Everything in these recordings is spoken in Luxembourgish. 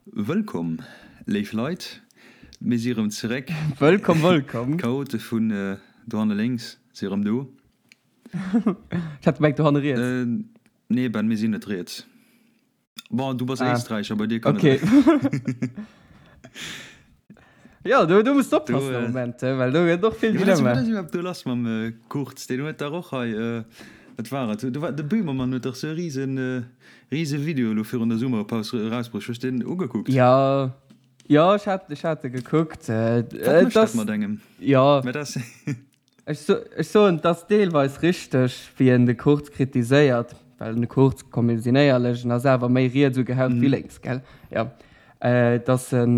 Wëllkomm, léif Leit, mir si rëm zeréck. Wëllkomm, wëllkomm. D'Chaote vun dohanne lénks si rëm do. Ech hat gemengt dohanne riets. Nee Ben, mir sinn net riets. Bon, du bass Ah. Éisträicher, bei dir kann Okay. et. Ja, do, do muss du Do, oppassen am äh, Moment, äh, well do gëtt och vill Ja, wat ass, Dilemma. wat ass iwwerhaapt do lass mam äh, Kurz? Deen huet dach och hei, äh, wat war et? Do war, de Böhmermann huet dach sou e riesen, äh, riese Video elo virun der Summerpaus erausbruecht. Hues de deen ugekuckt? Ja, ja, ech hat, ech hat e gekuckt. Äh, Wat et mécht dat ass, mat engem? ja. Mä dat ass. Ech soen, et ass deelweis richteg, wéi en de Kurz kritiséiert, well den Kurz, komm mir sinn éierlech, en ass awer méi riets ugehaucht wéi lénks, gell? Jo. Datt en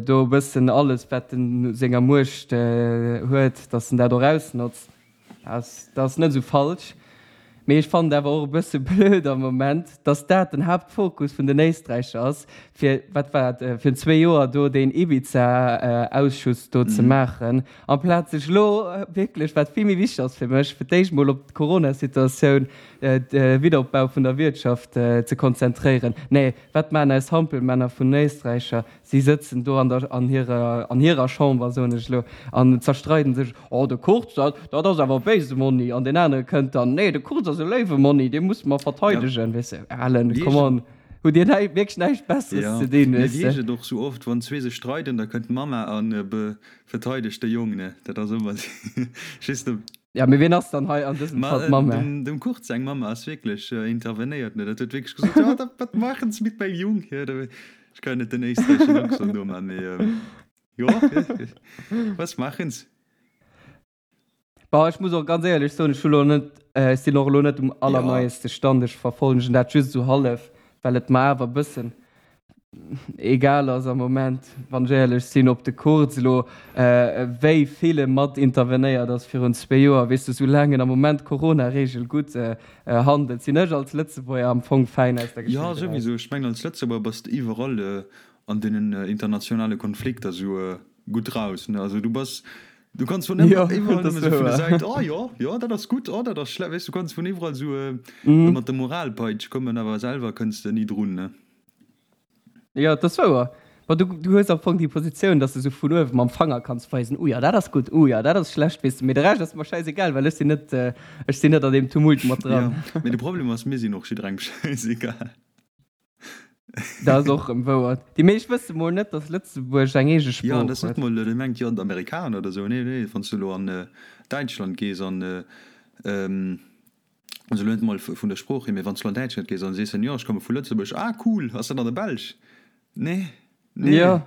do e bëssen alles, wat en u senger Muecht huet, datt en dat och ausnotzt, dat ass net esou falsch. Mee ech fannen et awer och e bësse blöd am Moment, dass dat den Haaptfokus vun den Éisträicher ass, fir, wat war et, virun zwee Joer do deen Ibiza-Ausschuss do ze maachen, amplaz sech elo wierklech, wat vill méi wichteg ass fir mech, fir d'éischt mol op d'Corona-Situatioun, de Wiederopbau vun der Wirtschaft ze konzentréieren. Nee, wat maachen eis Hampelmänner vun den Éisträicher? Si sëtzen do an der, an hirer, an hirer Chamber, soen ech elo, an zerstreiden sech, Oh, de Kurz, dat, dat ass awer e béise Monni. An deen anere kënnt dann, Nee, de Kurz ass e léiwe Monni, dee musse mer Ja, verteidegen. Weess de, Alan, wéi come ech et, on, hutt Dir näi, wierklech näischt Besseres ja, ze dinn, mee weess wéi de? ech et och sou oft, wann zwee sech streiden, da kënnt d'Mamma a be, verteidegt de Jong, ne? Dat ass ëmmer just de. Ja, mee wien ass dann hei an dësem Ma Fall d'Mamma? dem, dem Kurz seng Mamma ass wierklech intervenéiert, ne? Dat huet wierklech gesot, Ja, dat, wat maachen se mit meinem Jung hier? Da, Ech kann net den éisträicheschen Accent noman, mee jo, was machen se? Bon, ech muss och ganz éierlech soen, ech hu lo net, ech sinn och elo net um allerneieste Stand, ech verfollegen dat just esou hallef, well et mer awer e bëssen egal ass am Moment, wann ech éierlech sinn, ob de Kurz elo wéi vill e mat intervenéiert ass virun zwee Joer, weess de, soulaang en am Moment d'Corona-Reegel gutt handelt, sinn ech als Lëtzebuerger am Fong fäin aus der Jo, Geschicht eraus. souwisou. Ech mengen, als Lëtzebuerger bass de iwwerall an deenen internationale Konflikter sou gutt raus, ne? Also du bass, du kanns vun Jo, iwwerall dat ass nëmme sou vun der wouer. Säit, oh jo, jo, dat ass gutt, oh dat ass schle-, weess, du kanns vun iwwerall sou mat der Moralpeitsch kommen, awer selwer kënns de ni drun, ne? Jo, dat ass wouer. Bon, du, du hues am Fong déi Positioun, dass de sou vun uewe mam Fanger kanns weisen, uh ja, dat ass gutt, uh ja, dat ass schlecht, weess de. Mee de Rescht ass mer schäisegal, well ech sinn net, ech sinn net an deem Tumult mat dran. Jo, mee de Problem ass, mir sinn och jidderengem schäisegal. Dat ass och erëm wouer. Déi meescht wësse mol net, dass Lëtzebuerg eng eege Jo, an Sprooch dat ass net huet. mol, dee mengt jo, d'Amerikaner oder sou. Nee, nee, wann s du elo an Däitschland gees an, Also elo net mol vun der Sprooch hier, mee wann s du an Däitschland gees an sees dann, jo ech komme vu Lëtzebuerg, ah cool, ass dat an der Belsch? Nee, nee. Jo,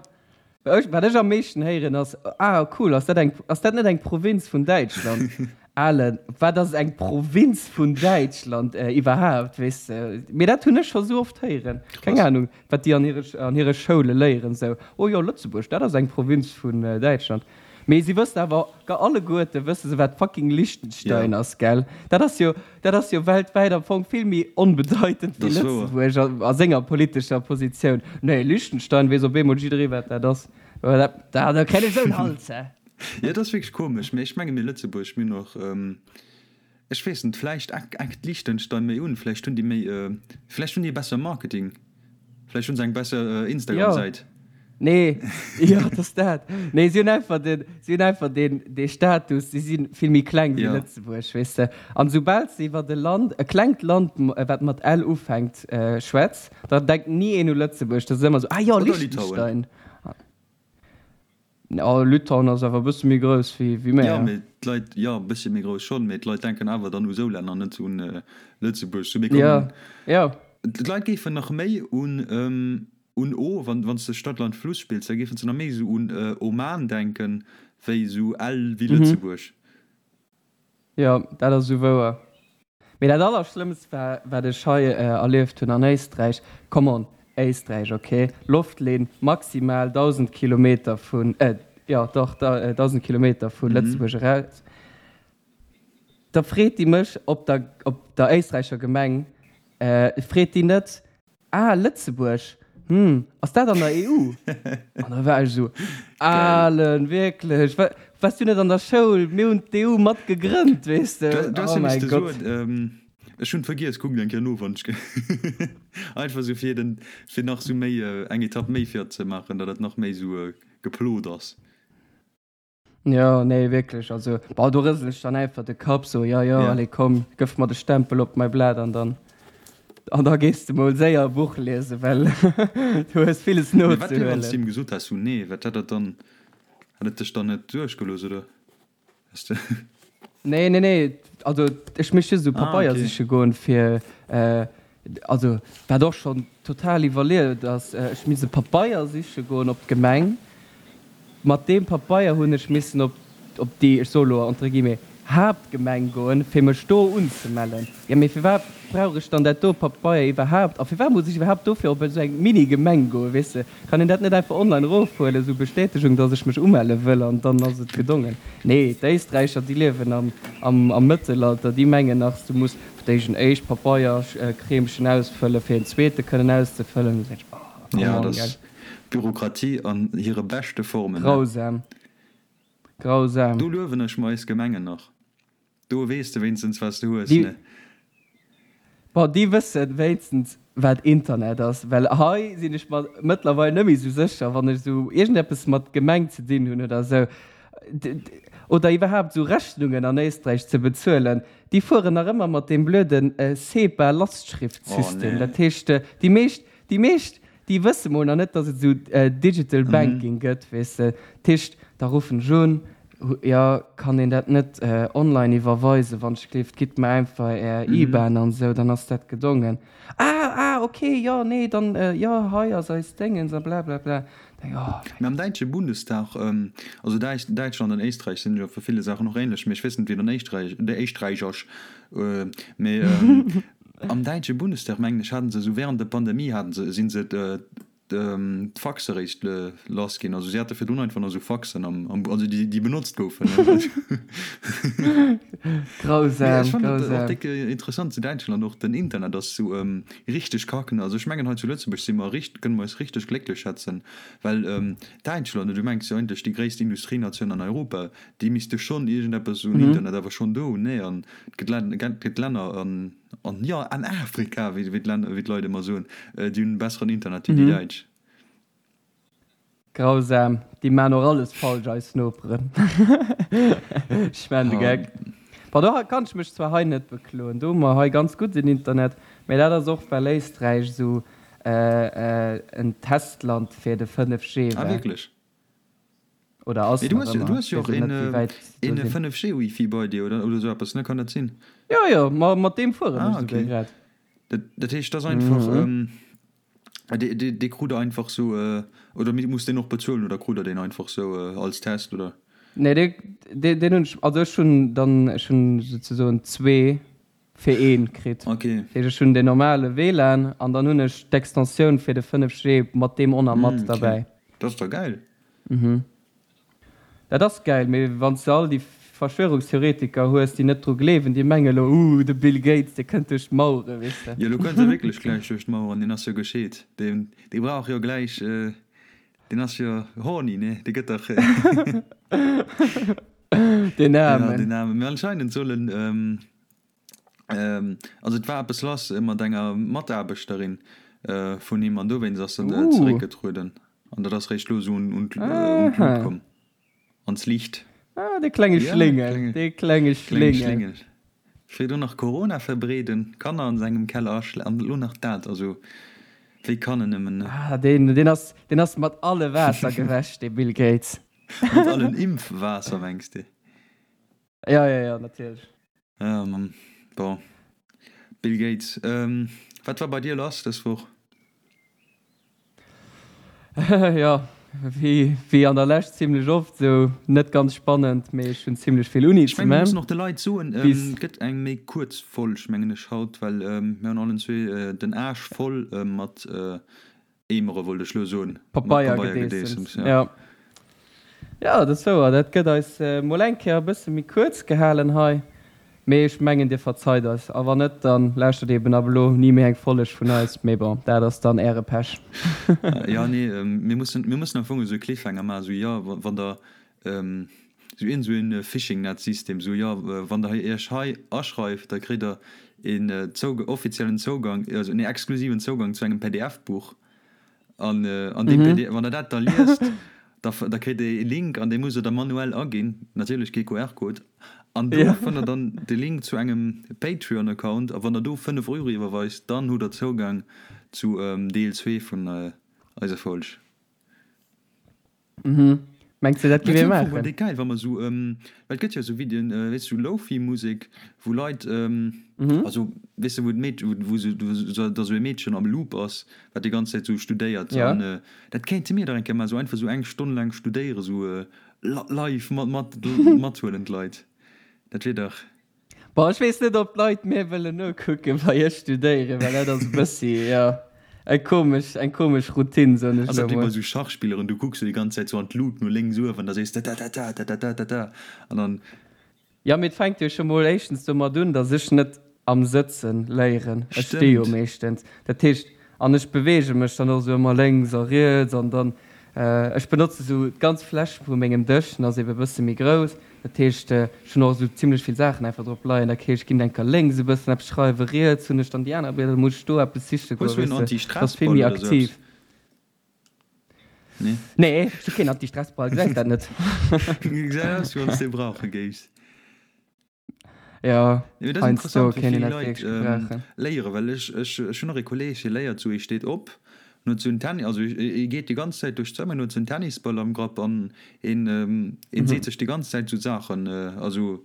ech, wat ech am meeschten héieren ass, ah cool, ass dat eng, ass dat net eng Provinz vun Däitschland? Alen, wat ass eng Provinz vun Däitschland iwwerhaapt, weess de? Mee dat hunn ech scho sou oft héieren, keng Krass. Anung, wat déi an hire, an hire Schoule léieren, sou, oh jo, Lëtzebuerg, dat ass eng Provinz vun Däitschland. Mee si wëssen awer alleguerte wësse se wat fucking Liechtenstein Ja. ass, gell? Dat ass jo, dat ass jo weltwäit am Fong vill méi onbedeitend wéi Dat ass wouer. Lëtzebuerg a, a senger politescher Positioun. Nee, Liechtenstein weess op eemol jidderee wat dat ass. Mä dat, da, da kréien ech esou en Hals, hä? Jo, dat ass wierklech komesch, mee ech menge mir Lëtzebuerg, mir hunn och, ech weess net, vläicht eckt Liechtenstein méi un, vläicht hunn déi méi, vläicht hunn déi e bessere Marketing. Vläicht hunn se eng besser Instagram-Säit. Nee, jo, et ass dat. Nee, si hunn einfach den, si hunn einfach den, dee Status, si si vill méi kleng wéi Lëtzebuerg, weess de. An esoubal s de iwwert e Land, e klengt Land, wat mat L ufänkt, schwätz, da denkt ni een u Lëtzebuerg. Da ass et ëmmer esou, ah jo, Oder Litauen. Liechtenstein. Oh, Litauen ass awer e bësse méi grouss wéi Jo, mär. mee d'Leit, jo, e bëssche méi grouss schonn, mee d'Leit denken awer dann u sou Länner, net un Lëtzebuerg. Sou, mir Jo, kommen, jo. d'Leit géifen nach méi un, un O, wann, wann s de Stadt, Land, Fluss spills, da géifen se nach méi esou un Oman denken, wéi esou L wéi Lëtzebuerg. Jo, dat ass esou wouer. Mee dat allerschlëmmst war, wat ech hei erlieft hunn an Éisträich, come on, Éisträich, ok, Loftlinn maximal 1.000 Kilometer vun, jo dach, 1.000 Kilometer vu Lëtzebuerg eraus, da freet déi mech op der, op der éisträicher Gemeng, freet déi net, Ah, Lëtzebuerg, hm, ass dat an der EU? An da war ech esou, Alen, wierklech, wa, waars du net an der Schoul? Mir hunn d'EU mat gegrënnt, weess de. Du, du has Oh jo mäi misste Gott. soen, ähm, Ech hunn vergiess, kuckt eng Kéier no wann ech einfach sou fir den fir nach sou méi eng Etapp méi fir ze maachen, datt et nach méi sou geplot ass. Jo, nee wierklech, also bon do rësel ech dann einfach de Kapp sou, jo jo allez komm, gëff mer de Stempel op mäi Blat an dann an da gees de mol séier e Buch liesen, well du hues villes Mee wat wier wann s de him gesot häss sou nee, wat hätt dat dann, hätt et dech dann net duerchgelooss oder? Nee, nee, nee, also ech misst just esou ah, Pabeier okay. siche goen fir äh, also wat och schon total iwwerlieft ass, äh, ech misst e Pabeier siche goen op d'Gemeng. Mat deem Pabeier hunn ech missen op op déi, ech soe lo entre guillemets, Haaptgemeng goen, fir mech do unzemellen. Jo, mee firwat brauch ech dann dat do Pabeier iwwerhaapt? A firwat muss ech iwwerhaapt dofir op esou eng Mini-Gemeng goen, weess de? Kann een dat net einfach online erofhuelen, esou Bestätegung, dass ech mech umelle wëll, an dann ass et gedongen? Nee, d'Éisträicher, déi liewen am, am, am Mëttelalter, déi mengen nach, du muss fir d'éischt en éischt Pabeierkreemchen ausfëllen, fir en zweete kënnen auszefëllen. Da sot ech, Oh, come Ja, on, dat gell. ass Bürokratie an hire beschte Formen, ne? Grausam. Grausam. Do luewen ech mer eis Gemengen nach. Do weess de wéinstens wat s de hues, ne? Bon, déi wëssen wéinstens wat Internet ass, well hei sinn ech mer mëttlerweil net méi esou sécher, wann ech esou iergendeppes mat Gemeng ze dinn hunn oder esou, oder iwwerhaapt esou Rechnungen an Éisträich ze bezuelen. Déi fueren nach ëmmer mat deem blöden SEPA-Lastschriftsystem. Dat heescht, déi meescht, déi meescht Déi wësse mol nach net, dass et esou Digital Banking gëtt, weess de. Dat heescht, da ruffen ech un, jo, kann een dat net online iwwerweisen, wann ech gleeft, gitt mer einfach är IBAN an esou, dann ass dat gedongen. Ah, ah, ok, jo, nee, dann, jo, hei ass eis Déngens a blablabla. Denk, oh mäi Mee am Gott. däitsche Bundestag, also Däitschland an Éisträich sinn jo a ville Saachen och ähnlech, mee ech weess net, wéi et an Éisträich, Éisträich ass, mee Am däitsche Bundestag, mengen ech, haten se esou während der Pandemie haten se, sinn se d'Faxe eréischt lass ginn. Also si hate virdrun einfach nach esou Faxen am, am, also déi, déi benotzt goufen. Grausam, Mee ech fannen et och grausam. déck interessant zu Däitschland och, den Internet ass sou richteg kacken. Also ech mengen hei zu Lëtzebuerg si mer richt, kënne mer eis richteg glécklech schätzen, well Däitschland, du mengs jo eigentlech déi gréisst Industrienatioun an Europa, déi misste schonn iergendeppes un Internet awer schonn do hunn, nee? An et gëtt Län, gëtt Länner an, an jo an Afrika, wéi wéi d'Länner, wéi d'Leit ëmmer soen, déi hunn besseren Internet wéi déi Däitsch. Grausam, déi maan och alles falsch, eis Noperen. Ech maan de Geck. Bon, do kann ech mech zwar hei net bekloen, do hu mer hei ganz gudden Internet, mä dat ass och well Éisträich esou en Testland fir de 5G Ah war. wierklech? Oder ass Mee du hues, du hues jo och een, een 5G Wifi bei dir, oder, oder sou eppes, ne? Kann dat sinn? Jo, jo, ma mat deem fueren ech ah, okay. grad. Dat, dat heescht, dat ass einfach, mhm. ähm, dee, dee, dee krut der einfach sou, äh, oder muss deen och bezuelen, oder krut der deen einfach sou äh, als Test, oder? Nee, dee, dee, deen hunn ech, also ech hunn dann, ech hunn souzesoen zwee fir een kritt. Okay. Dat heescht, ech hunn deen normale WLAN an dann hunn ech d'Extensioun fir de 5G mat deem och nach mat mm, okay. derbäi. Dat ass da gäil. Mhm. Dat ass gäil, mee wann s de all déi Verschwörungstheoretiker hues, déi net dru gleewen, déi menge lo, uh, de Bill Gates, dee kënnt duerch d'Mauere, weess de. Jo, lo kënnt e wierklech gläich duerch d'Maueren, deen ass jo gescheet. Deen, dee brauch jo gläich, deen ass jo horny, ne? Dee gëtt dach. Deen Aarmen. Ja, deen Aarmen. Mee anscheinend soll en, also et war eppes lass mat enger Mataarbechterin vun him an dowéinst ass en zeréckgetrueden. An dat ass réischt lo esou un d'Lut komm, ans Liicht. Ah, dee klenge Schléngel, dee klenge Schléngel. Virdrun nach Corona verbreeden, Kanner an sengem Keller aschle an elo nach dat. Also wéi kann en nëmmen, ne? Ah, deen, deen ass, deen ass mat alle Waasser gewäsch, dee Bill Gates. Mat allen Impfwaasser mengs de? Ja, ja, ja, natierlech. Ja, Mann. Bon. Bill Gates. Ähm, wat war bei dir lass dës Woch? Jo, wéi, wéi an der Lescht zimlech oft, sou net ganz spannend, mee ech hunn zimlech vill Uni Ech ze mengen, mir man. mussen och de Leit soen, Bis. et gëtt eng méi kuerz Folg, mengen ech, haut, well mir hunn allen zwee den Aarsch voll mat Eemere wollt ech lo soen. Pabeiergedeessems, jo. Jo, dat ass wouer. Dat gëtt eis mol eng Kéier e bësse méi kuerz gehalen hei. Mee ech mengen, Dir verzeit eis. A wann net, da lauschtert eben ab elo ni méi eng Folleg vun eis. Mee bon, dat ass dann Äre Pech. Jo, nee, mir mussen, mir mussen am Fong esou e Cliffhanger maachen, esou, jo, wann Der. Sou iergend sou een Fishing-Net-System, sou jo, wann der iech hei aschreift, da kritt der een Zougang, offiziellen Zougang, also nee, exklusiven Zougang zu engem PDF-Buch. An an deem PDF, wann der dat da liest, da da kritt der ee Link an dee musst der da manuell aginn, natierlech kee QR-Code. An do fënnt der dann de Link zu engem Patreon-Account a wann der do 5 Euro iwwerweist, dann hutt der Zougang zu Deel 2 vun eiser Folg. Mhm. Mengs de dat gi mir maachen? Déi geil wa mer sou well et gëtt jo sou Videoen weess sou Lofi Musek wou Leit also weess de wou d'Meed wou sou da sou e Meedchen am Loop ass wat déi ganz Zäit sou studéiert an dat kéinte mir dach eng Kéier maachen sou einfach sou eng Stonn laang studéiere sou live mat mat mathuelen d'Leit dat wier dach. Bon, ech weess net, ob d'Leit mir wëllen nokucken, wei ech studéieren, well dat ass e bëssi, jo, eng komesch, eng komesch Routine, soen ech Ass elo dat wéi bei mol. sou Schachspilleren, du kucks sou déi ganz Zäit sou an d'Lut no lénks uewen, da sees de tatata, tatata, tata an dann. Jo, mee et fänkt jo scho mol éischtens domat un, datt ech net am Sëtzen léieren. Ech sti jo Stëmmt. meeschtens. Dat heescht, an ech beweege mech dann och sou ëmmer lénks a riets an dann, ech benotze sou d'ganz Fläch vu mengem Dësch, den ass ebe bësse méi grouss, Dat heescht, ech hunn och esou zimlech vill Saachen einfach drop leien. Dat heescht, ech ginn enker lénks e bëssen eppes schreiwen, riets hunn ech dann déi aner Blieder, da muss ech do eppes siche goen, Hues du weess en de. Dat ass vill Anti-Stress-Ball méi oder sou aktiv. eppes? Nee? Nee, ech hu keen Anti-Stress-Ball, gesäis dat net? Gesäit aus, wéi wann s de e brauche géifs. Jo, Mee dat ass heiansdo interessant, wéi kéint een vill dat Leit wierklech gebrauchen. léieren, well ech, ech, ech hunn och e Kolleeg, dee léiert sou, e steet op, en huet sou en Tenni-, also e geet déi ganz Zäit duerch d'Zëmmer, en huet sou en Tennisball am Grapp an en, en seet sech déi ganz Zäit sou Saachen, also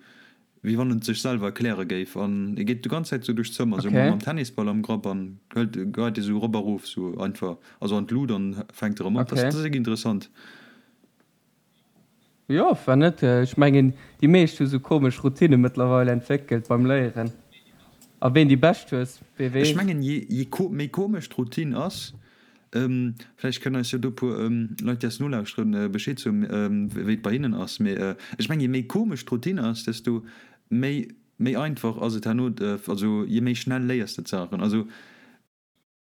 wéi wann en et sech selwer erkläre géif an e geet déi ganz Zäit sou duerch d'Zëmmer, sou Okay. mam Tennisball am Grapp an hëlt, geit e sou erop a rof, sou einfach, also an d'Lut an fänkt erëm op. Dat Okay. ass wierklech interessant. Jo, war net. Ech mengen, déi meescht hu sou komesch Routine mëttlerweil entwéckelt beim Léieren. A ween déi bescht hues, wee Ech weess. mengen, je méi komesch d'Routine ass, vläicht kënnen eis jo do puer Leit, déi eis nolauschteren, Bescheed soen, wéi et bei hinnen ass, mee ech mengen, je méi komesch d'Routine ass, desto méi méi einfach ass et herno, also je méi schnell léiers de d'Saachen. Also.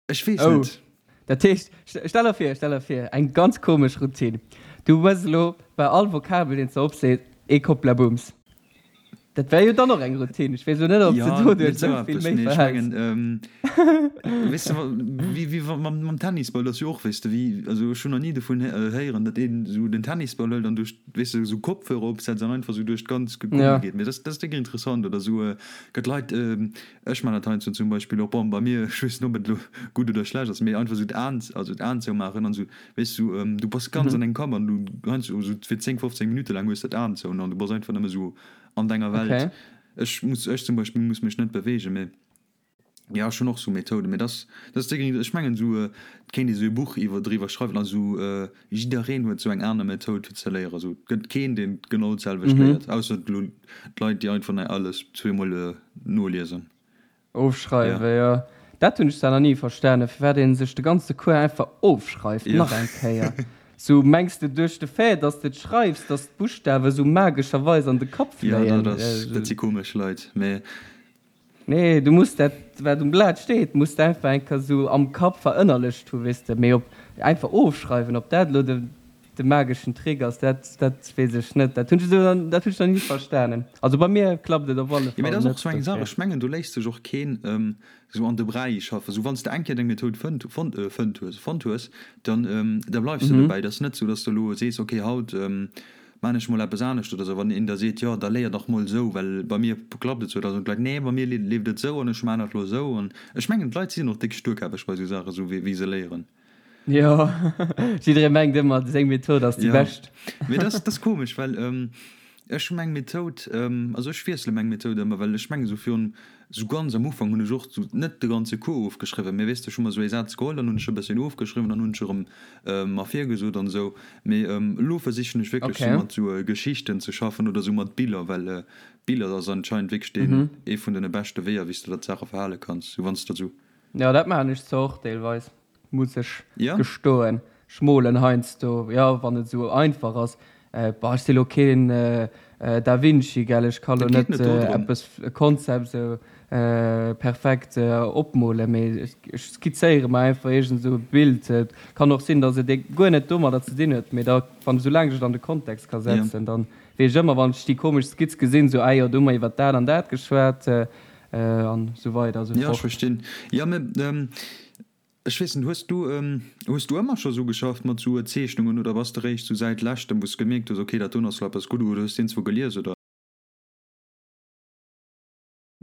Ech weess Oh, net. dat heescht, stell der vir, stell der vir, eng ganz komesch Routine. Du hues elo bei all Vokabel, deen s de opsees, ee Kopplabums. Dat wär jo dann och eng Routine. Ech weess elo net, ob s de Ja, net doduerch esou esou vill eppes, méi mee ech verhäls. mengen, weess de, wéi, wéi wa mam, mam Tennisball ass jo och, weess de, wéi, also ech hunn nach ni dovun héieren, datt een esou den Tennisball hëlt an duerch, weess de, esou Kopfhörer opsetzt an einfach esou duerch d'ganz Gummi Ja. geet. Mee dat, dat ass déck interessant. Oder esou gëtt Leit, Ech man dat heiansdo zum Beispill och, bon, bei mir, ech weess net ob et elo gutt oder schlecht ass, mee einfach esou d'Aen, also d'Aen zoumaachen an esou, weess du, du bass ganz an dengem Kapp an du heiansdo esou fir 10, 15 Minutte laang hues de d'Aen zou an du bass einfach nëmme esou an denger Welt. Okay. Ech muss, ech zum Beispill muss mech net beweegen, mee jo, ech hunn och esou Methoden, mee dat, dat ass déi, ech mengen esou, et kéint ee esou e Buch iwwer, driwwer schreiwen, also jiddereen huet esou eng aner Methoud fir ze léieren, esou, et gëtt keen, deen genau d'selwecht léiert, ausser elo d'Leit, déi einfach alles zweemol Noliesen. Ofschreiwen, jo. Dat hunn ech zwar nach ni verstanen, firwat ee sech de ganze Cours einfach ofschreift, nach eng Kéier. Sou, mengs de duerch de Fait, dass de et schreifs, dass d'Buschtawe sou magescherweis an de Kapp Jo, fléien? dat ass, dat si komesch Leit, mee. Nee, du muss dat, wat um Blat steet, muss de einfach eng Kéier sou am Kapp verënnerlecht hu, weess de. Mee op einfach ofschreiwen, ob dat elo de. De mageschen Trick ass, dat dat weess ech net. Dat hunn ech esou, dat hunn ech nach ni verstanen. Also bei mir klappt et op alle Jo, mee Fall dat ass och net, esou eng Saach, dofir. ech mengen do léisst sech och keen esou an de Bräi schaffen. Esou wann s de eng Kéier deng Methoud fënnt, fonnt, fënnt hues, fonnt hues, dann da bleifs de dobäi. Dat ass net esou, datt s de elo sees, okay haut maan ech mol eppes anescht oder esou. Wann een der seet, jo da léier dach mol esou, well bei mir klappt et esou, da soen d'Leit, nee bei mir leeft et esou an ech maan dat elo esou. An ech mengen d'Leit sinn och déck sturkäppeg bei esou Saachen, esou wéi se léieren. Jo, jidderee mengt ëmmer, seng Method ass déi Ja, bescht. mee dat ass komesch, well ech hu meng Method, also ech wiessele meng Method ëmmer, well ech mengen esou virun, esou ganz am Ufank hunn ech och esou net de ganze Cours ofgeschriwwen, mee weess de, ech hu mer esou ee Saz geholl, dann hunn ech e bësschen ofgeschriwwen, dann hunn ech erëm mer virgesot an esou. Mee elo versichen ech wierklech esou Okay. mat esou Geschichten ze schaffen oder esou mat Biller, well Biller ass anscheinend wierklech deen ee vun den beschte Weeër, wéi s de der d'Saache verhale kanns, esou wann s de esou. Jo, dat maachen ech zwar och deelweis. Muss ech Ja? gestoen. Ech molen heiansdo, jo, wann et esou einfach ass. Bah, ech si lo keen Da Vinci, gell, ech ka lo Et geet net net dodrëm. eppes, e Konzept esou. perfekt opmolen, mee ech skizzéiere mer einfach iergend esou e Bild. Et kann och sinn, datt et guer net domadder ze dinn huet, mee da wann esoulaang ech et an de Kontext ka setzen, dann weess ech ëmmer, wann ech déi komesch Skizz gesinn, esou, ah jo, do hu mer iwwer dat an dat geschwat an esou weider esou fort. Jo, ech verstinn. Jo, mee ech weess net, hues du, hues du ëmmer scho sou geschafft mat sou Zeechnungen oder bass de réischt sou säit leschtem, wou s de gemierkt hues, okay, dat doen ass lo eppes gutt, oder hues de iergendzwou gelies oder?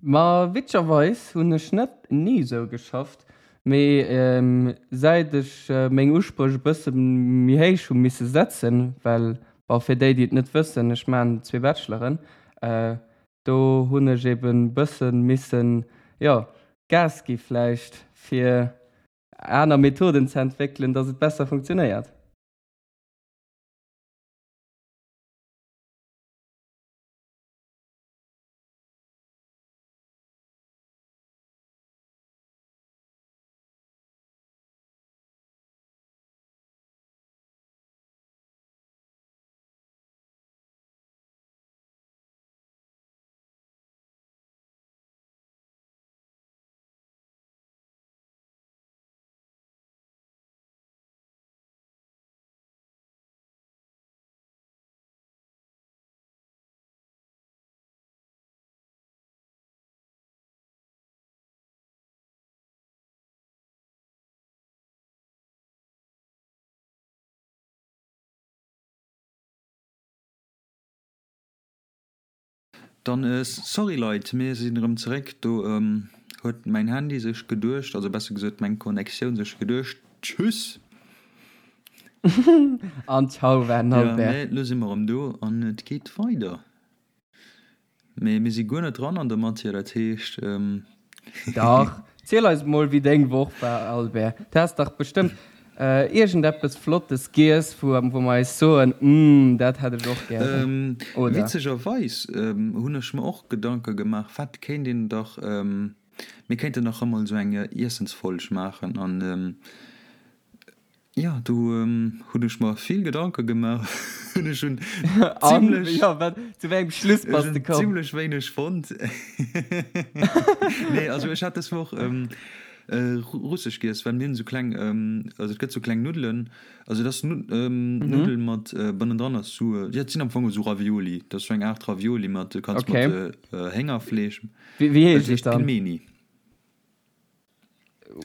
Ma witzegerweis hunn ech net ni sou geschafft, mee säit ech meng Uspréch e bësse méi héich hu misse setzen, well, bon, fir déi déi et net wëssen, ech maachen zwee Bacheloren, do hunn ech eben bësse missen, jo, Gas gi vläicht, fir aner Methoden ze entwéckelen, dass et besser funktionéiert. Dann sorry Leit, mir sinn erëm zeréck. Do huet mäin Handy sech geduecht, also besser gesot meng Connectioun sech geduecht, Tschüss! An ciao war den Albert. Jo, mä lo si mer erëm do an et geet weider. Mee mir si guer net dran an der Matière, dat heescht. Dach, ziel eis mol wéi deng Woch war, Albert. Du has dach bestëmmt iergendeppes Flottes giess, wou mer eis soen, Umm, dat hätt ech och gären, oder? Witzegerweis hunn ech mer och Gedanke gemaach, wat kéint een dach, mir kéinten dach emol esou eng Iessensfolg maachen an Jo, do hunn ech mer vill Gedanke gemaach. Ech hunn zimlech, jo, wat, zu wéi engem Schluss bass de komm? Zimlech wéineg fonnt. Nee, also ech hat dës Woch russesch giess, well mir hunn esou kleng, also et gëtt esou kleng Nuddelen, also et ass Nuddel mat bannendran ass esou, jo et sinn am Fong esou Ravioli, dat ass esou eng Aart Ravioli mat, du kanns mat Héngerfleesch. Wéi heescht et dann? Pilmeni.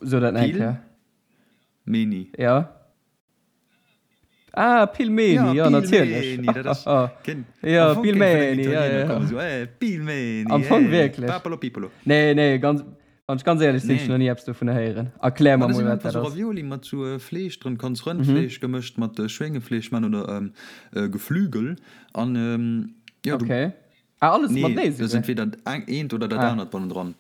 So dat nach eng Kéier. Pilmeni. Ja. Ah, Pilmeni, ja, ja natierlech. Pilmeni, dat ass. Ja, Pilmeni, ja, ja. So, eh, Pilmeni. Am Fong eh, wierklech. Papalo pipolo. Nee, nee, ganz, wann ech ganz éierlech sinn, nee. ech nach ni eppes dovun héieren. Erklär mer mol, wat dat ass. Ravioli mat sou äh, Fleesch dran, kanns Rëndfleesch mhm. gemëscht mat äh, Schwéngefleesch man oder ähm, äh, Geflügel. An, ähm, ja, okay. Du, Ah, alles Nee, matenee dat ass souguer? entweder eng, eent oder dat Ah. anert bannendran.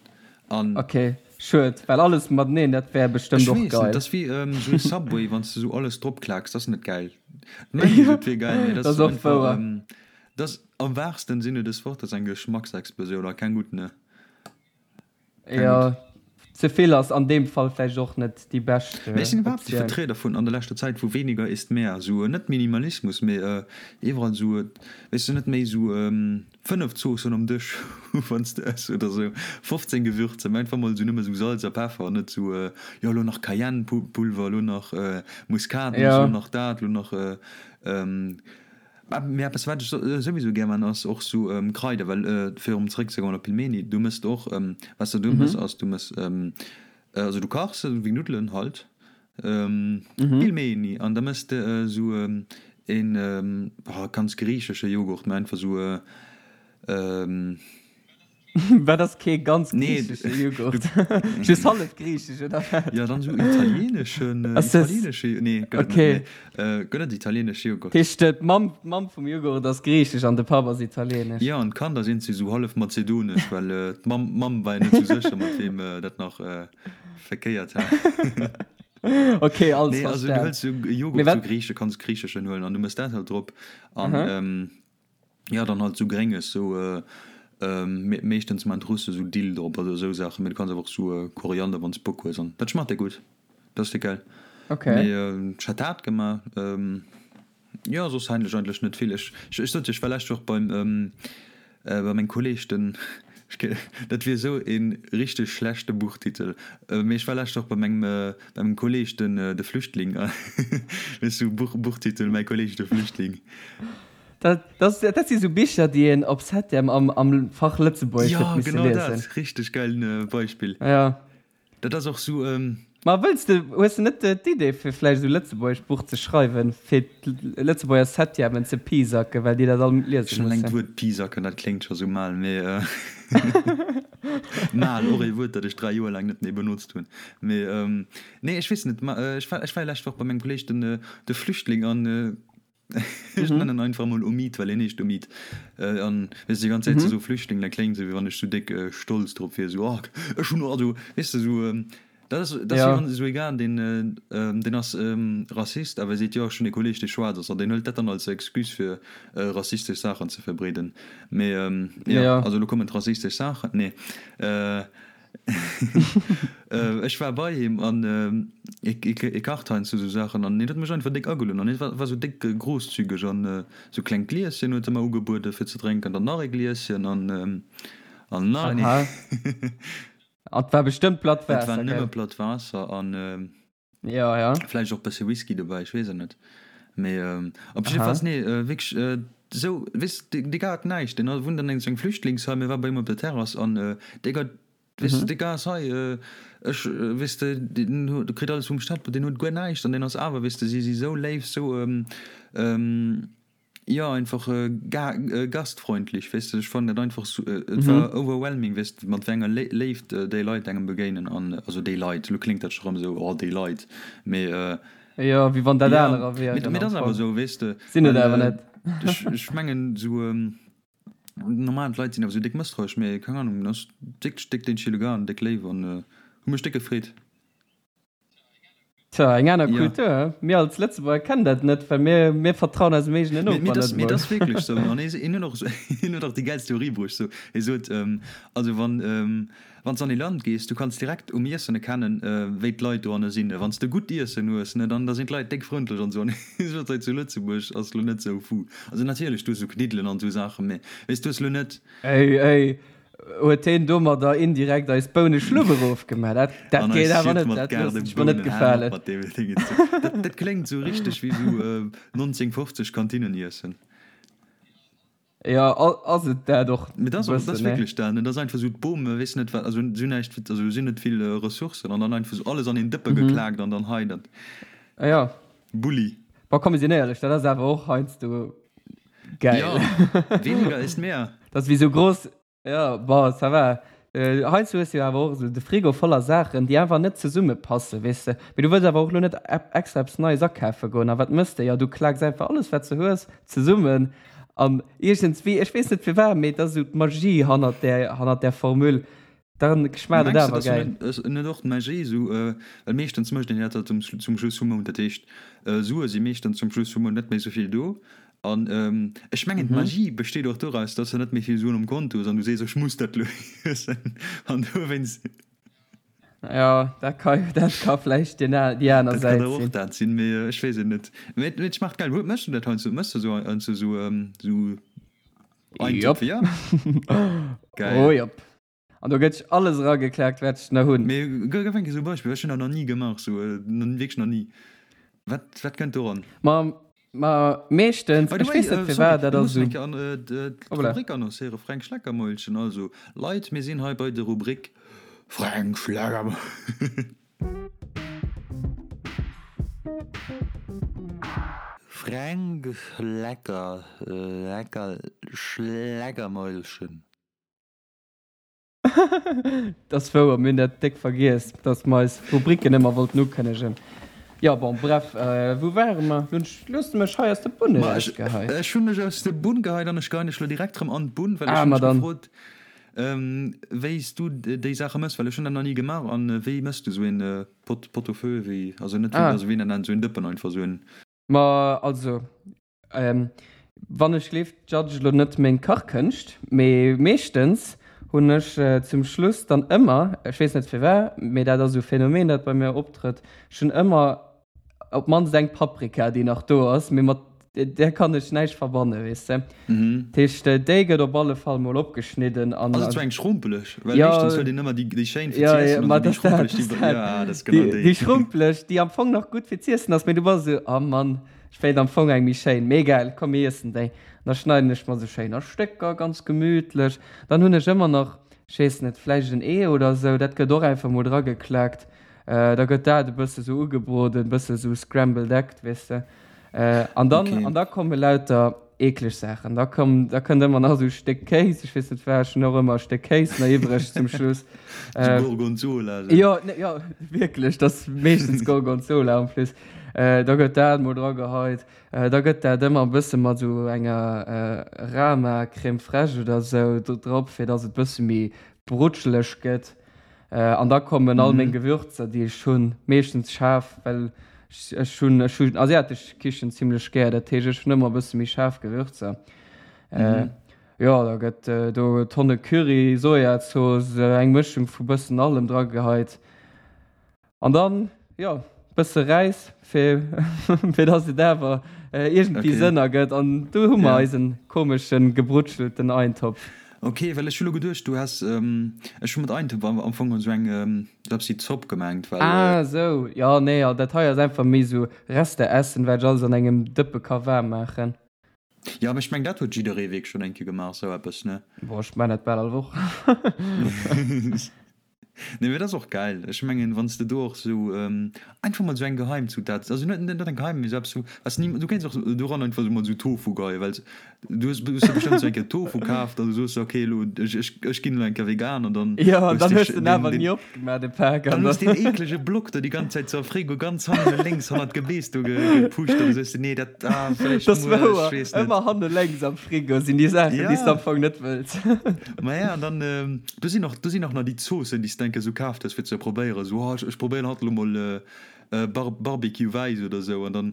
An Okay, schued, well alles mateneen, dat wär bestëmmt ech och weess net, geil. dat ass wéi esou e Subway, wann s de esou alles dropklaaks, dat ass net gäil. Mengen se, Jo, et wier gäil, mee dat dat ass ass och einfach, wouer. dat ass am wahrsten Sinne des Wortes eng Geschmacksexplosioun a keng gutt, ne? Keng gutt. Jo, ze vill ass an deem Fall vläicht och net déi bescht Mee ech sinn iwwerhaapt e Optioun. Vertrieder vun an der leschter Zäit vu weniger ist mehr. Esou net Minimalismus, mee iwwerall esou, weess de, net méi esou 5 Zoossen um Dësch hu wann s de ëss oder esou 15 Gewürzer, mee einfach mol esou nëmme esou Salz a Peffer an net esou, jo elo nach Cayennepulver, elo nach Muskatnuss, Jo. elo nach dat, elo nach. Mee eppes wat ech souwisou gär man ass och sou Kraider, well fir erëm zeréck ze goen op Pilmeni, du mëss och, wat s de do mëss ass du mëss, also du kachs se wéi Nuddelen halt, Pilmeni, an da mëss de sou een ganz griichesche Joghurt, mä einfach sou. Wat ass kee ganz griichesche Joghurt? Just hallef griichesch, oder wat? Jo, dann esou italieneschen, italienesche, nee, gëtt et net, nee, gëtt et italienesche Joghurt? Dat heescht, d'Mamm, d'Mamm vum Joghurt ass griichesch an de Papp ass italienesch? Jo, an d'Kanner sinn si sou hallef mazedonesch, well d'Mamm, d'Mamm war jo net sou sécher, mat weem dat nach verkéiert hat. Ok, alles Nee, also du verstan. hëls sou Mee Joghurt, wat? sou griiche, kanns griicheschen huelen an du mëss dat halt drop an. Ja dann halt sou grénges sou meeschtens maan d'Russe sou Dill drop oder sou Saachen, mee du kanns awer och sou Koriander wanns Bock hues an dat schmaacht der gutt, dat ass der geil. Okay. Mee ech hat dat gemaach, jo soss eigentlech eigentlech net vill. Ech ech sot jo ech war lescht Woch beim bei mengem Kolleg den. Dat wier esou ee richteg schlechte Buchtitel. Mee ech war lescht Woch bei mengem, bei mengem Kolleg, den, de Flüchtling. Weess du, Buch, Buchtitel, Mäi Kolleg, de Flüchtling. Dat, dat, dat si sou Bicher, déi een op Septième am, am Fach Lëtzebuergesch huet misse liesen. Jo, genau dat. Richteg gäilen Beispill. Ja. Dat ass och sou. Ma wëlls de, hues de net d'Idee fir vläicht esou lëtzebuergescht Buch ze schreiwen, fir d'Lëtzebuerger Septièmen ze pisacken, well déi dat all liese Schon eleng mussen? d'Wuert pisacken, dat kléngt scho sou mal, mee mal, och ee Wuert, dat ech 3 Joer laang net méi benotzt hunn. Mee nee, ech weess net, ma ech war, ech war lescht Woch bei mengem Kolleeg, den de Flüchtling, an Ech nennen einfach mol Omid, well hien heescht Omid. An weess de, déi ganz Zäit ze soe Flüchtling, dat kléngt esou, wéi wann ech sou déck stolz drop wier, esou, oh, ech hunn, also, weess de, esou, dat ass, dat ass wéi wann esou ee Gaart, deen, deen ass Rassist, awer e seet, jo, ech hunn ee Kolleeg, dee schwaarz ass, an deen hëlt dat dann als Excuse fir rassistesch Saachen ze verbreeden. Mee jo, also elo kommen d'rassistesch Saachen, nee. Ech war bei him an e kacht heiansdo sou Saachen an hien huet mech einfach déck agelueden an hie war sou déck großzügeg an sou klengt Glieschen huet e mer ugebueden fir ze drénken, dann nach e Glieschen an an nach een. Aha. An et war bestëmmt platt Waasser, gell? Et war nëmme platt Waasser an. Ja, ja. Vläicht och bësse Whisky dobäi, ech weess et net. Mee op jiddefalls, nee, wierklech esou, weess de, dee Gars hat näischt. Deen wunnt an engem Flüchtlingsheim, hie war bei him op der Terrass an dee Gars, weess de, dee Gars ass hei, ech, weess de, deen huet, kritt alles vum Staat, deen huet guer näischt an deen ass awer, weess de, si si sou léif, sou, Jo einfach gastfreundlich, weess de, ech fannen dat einfach sou, et war overwhelming, weess de, mat wéi enger Léift déi Leit engem begéinen an, also déi Leit, elo kléngt dat scho rëm esou, oh déi Leit, mee. Jo, wéi wann dat anerer wieren. Mee dat ass awer esou, weess de. Sinn et awer net. Ech mengen esou normal d'Leit sinn awer esou déck mësstrauesch, mee keng Ahnung, ass wierklech déck den chille Gars an déck léif an hu mech déck gefreet. Tja, eng aner Kultur, he? Mir als Lëtzebuerger kennen dat net, well mir, mir vertrauen eisem eegenen Noper net mol. Mee dat ass wierklech sou. An hien huet och, hien huet och déi gäilst Theorie bruecht. Sou, hie sot, also wann, wann s de an ee Land gees, du kanns direkt um Iessen erkennen, wéi d'Leit dohanne sinn. Wann s de gutt Iessen hues, ne, dann da sinn d'Leit déck frëndlech an esou. An hie sot, hei zu Lëtzebuerg ass lo net sou fou. Also natierlech, du hues sou Kniddelen an esou Saachen, mee weess, du hues lo net. Ey, ey, Huet heen domadder indirekt eis Bouneschlupp erofgemaach? Dat, dat geet awer net, dat loossen ech mer net gefalen. Dat kléngt sou richteg wéi sou 1950 Kantinneniessen. Jo, ass et dat och e bëssen, ne? Dat ass wierklech dat, ne? Dat ass einfach sou d'Bom, weess net wat, also si hunn näischt, also si hunn net vill Ressourcen an dann einfach sou alles an een Dëppe geklaakt an dann hei dat. Jo. Bulli. Bon, komm, mir sinn éierlech, dat ass awer och heiansdo Geil. Ja, weniger ist mehr. Das wie so groß. Ja, bon, ça va. Äh, heiansdo hues du jo awer och esou de Frigo voller Saachen, déi einfach net zesummepassen, weess de. Mee du wëlls awer och elo net extra eppes Neies akafe goen. A wat mëss de? Jo, du klaaks einfach alles, wat s de hues, zesummen. An iergendswéi, ech weess net firwat, mee et ass esou d'Magie hannert där, hannert där Formule. Dann schmaacht et awer gäil. Mengs de, dass net och d'Magie esou, well meeschtens mécht een dat zum Schluss vum Mount, dat heescht Sue si meeschtens zum Schluss vum Mount net méi esou vill do an ech mengen d'Magie besteet och doraus, dass de net méi vill Suen um Konto hues an du sees ech muss dat elo iessen an dowéinst. Jo, dat ka dat ka vläicht déi aner Säit sinn. Dat kann och dat sinn, mee ech weess et net. Mee et schmaacht gäil. Méchs du dat heiansdo? Méchs de esou heiansdo esou Eintopf, ja? Geil. Oh jop. An do gëtt alles erageklaakt, wat ech nach hunn. Mee gëff eng Kéier esou e Beispill, ech hunn dat nach ni gemaach, esou, wierklech nach ni. Wat, wat kënnt do eran? Ma, ma meeschtens, By the ech way, weess net sorry, firwat, dat mir ass mussen esou. eng Kéier an Hoppla. d'Rubrik annoncéieren, Fränk Schleckermäulchen. Also, Leit, mir sinn hei bei der Rubrik Fränk Schleckermäulchen. Fränk Schlecker, lecker Schleckermäulchen. Dat ass wouer, mir hunn dat déck vergiess, dass mer eis Rubriken ëmmer wollten ukënnegen. Jo, bon, bref, wou ware mer? Lo hues de mech hei aus der Bunn erausgeheit. Ech hunn dech aus der Bunn geheit an ech geheien dech lo direkt erëm an d'Bunn, well ech hunn dech gefrot, wéi s du déi Saache mëss, well ech hunn dat nach ni gemaach. An wéi mëss du esou een Pot, Pot au feu, wéi, also net wéi, also wéi nennt een esou een Dëppen einfach, esou een. Ma also, Wann ech gleeft, judge elo net meng Kachkënscht, mee meeschtens hunn ech zum Schluss dann ëmmer, ech weess net firwat, mee dat ass esou e Phänomen dat bei mir optrëtt, ech hunn ëmmer op d'mannst eng Paprika déi nach do ass, mee mat. Där kann ech näischt verbannen, weess de. Dat heescht, déi gëtt op alle Fall mol opgeschnidden an. Ass et sou eng schrumpeleg? Well meeschtens huet een ëmmer déi, déi schéin fir z'iessen an déi schrumpeleg, déi. Ja, dat ass genau déi. Déi schrumpeleg, déi am Fong nach gutt fir z'iessen ass, mee du bass esou, Oh Mann, ech wéilt am Fong eng méi schéin. Mee egal, komm mir iessen déi. An da schneiden ech mer se schéin a Stécker, ganz gemütlech. Dann hunn ech ëmmer nach, ech weess net, vläicht en Ee oder esou, dat gëtt och einfach mol drageklaakt. Da gëtt dat e bësse sou ugebroden, e bësse sou scrambled egg, weess de. An dann, okay. an da komme lauter eekleg Saachen. Da komm, da kënnt ëmmer nach sou e Stéck Kéis, ech weess net wat, ech hunn och ëmmer e Stéck Kéis nach iwwreg zum Schluss. Sou Gorgonzola. Sou. Jo, ne, jo, wierklech, dat ass meeschtens Gorgonzola en plus. Da gëtt dat mol drageheit. Da gëtt dat ëmmer e bësse mat sou enger Rama Crème fraîche oder sou drop, fir dass et bësse méi brutscheleg gëtt. An da kommen all meng Gewürzer, déi ech hunn, meeschtens schaarf, well ech hunn ech hunn asiatesch Kichen zimlech gär, dat heescht ech hunn ëmmer e bësse méi schaarf Gewürzer. Jo, da gëtt do Tonne Curry, Sojazooss, eng Mëschung vu bëssen allem drageheit. An dann, jo, bësse Räis, fir, fir dass et awer iergendwéi Sënn ergëtt. An do hu mer eisen komeschen, gebrutschelten Eintopf. Ok, well ech hu lo geduecht, du häss, ech hu mat Eintopf am Fong esou eng, esou eppes wéi Zopp gemengt, well. Ah esou, jo, nee, dat hei ass einfach méi esou Resteessen, wat ech alles an engem Dëppe ka waarm maachen. Jo, mee ech meng dat huet jidderee wierklech schonn eng Kéier gemaach, esou eppes, ne? Boah, ech maan dat bal all Woch. Nee, mee dat ass och gäil. Ech mengen, wann s de do och esou einfach mol esou eng Geheimzutat, also net net eng geheim, mee esou eppes, was ni, du kéints och doran einfach esou mol esou Tofu geheien, well du hues du hues jo bestëmmt esou eng Kéier Tofu kaaft an du soos, ok, elo ech ech ech ginn elo eng Kéier vegan an dann Jo, an hues dann de hues de en awer ni opgemaach, de Pak, an dann hues deen eeklege Block do déi ganz Zäit sou am Frigo ganz hannen lénks hannert d'Gebeess do gepusht an du soos, nee, dat. Ah, vläicht Das muer, wouer. ech weess net. Ëmmer hanne lénks am Frigo sinn déi Saachen, déi s de am Fong net wëlls. Ma ja, an dann, do sinn och, do sinn och nach déi Zoossen, déi s de eng Kéier esou kaaft hues, fir ze probéieren, esou, oh, ech probéieren haut elo mol Bar, Barbecue wäiss oder esou, an dann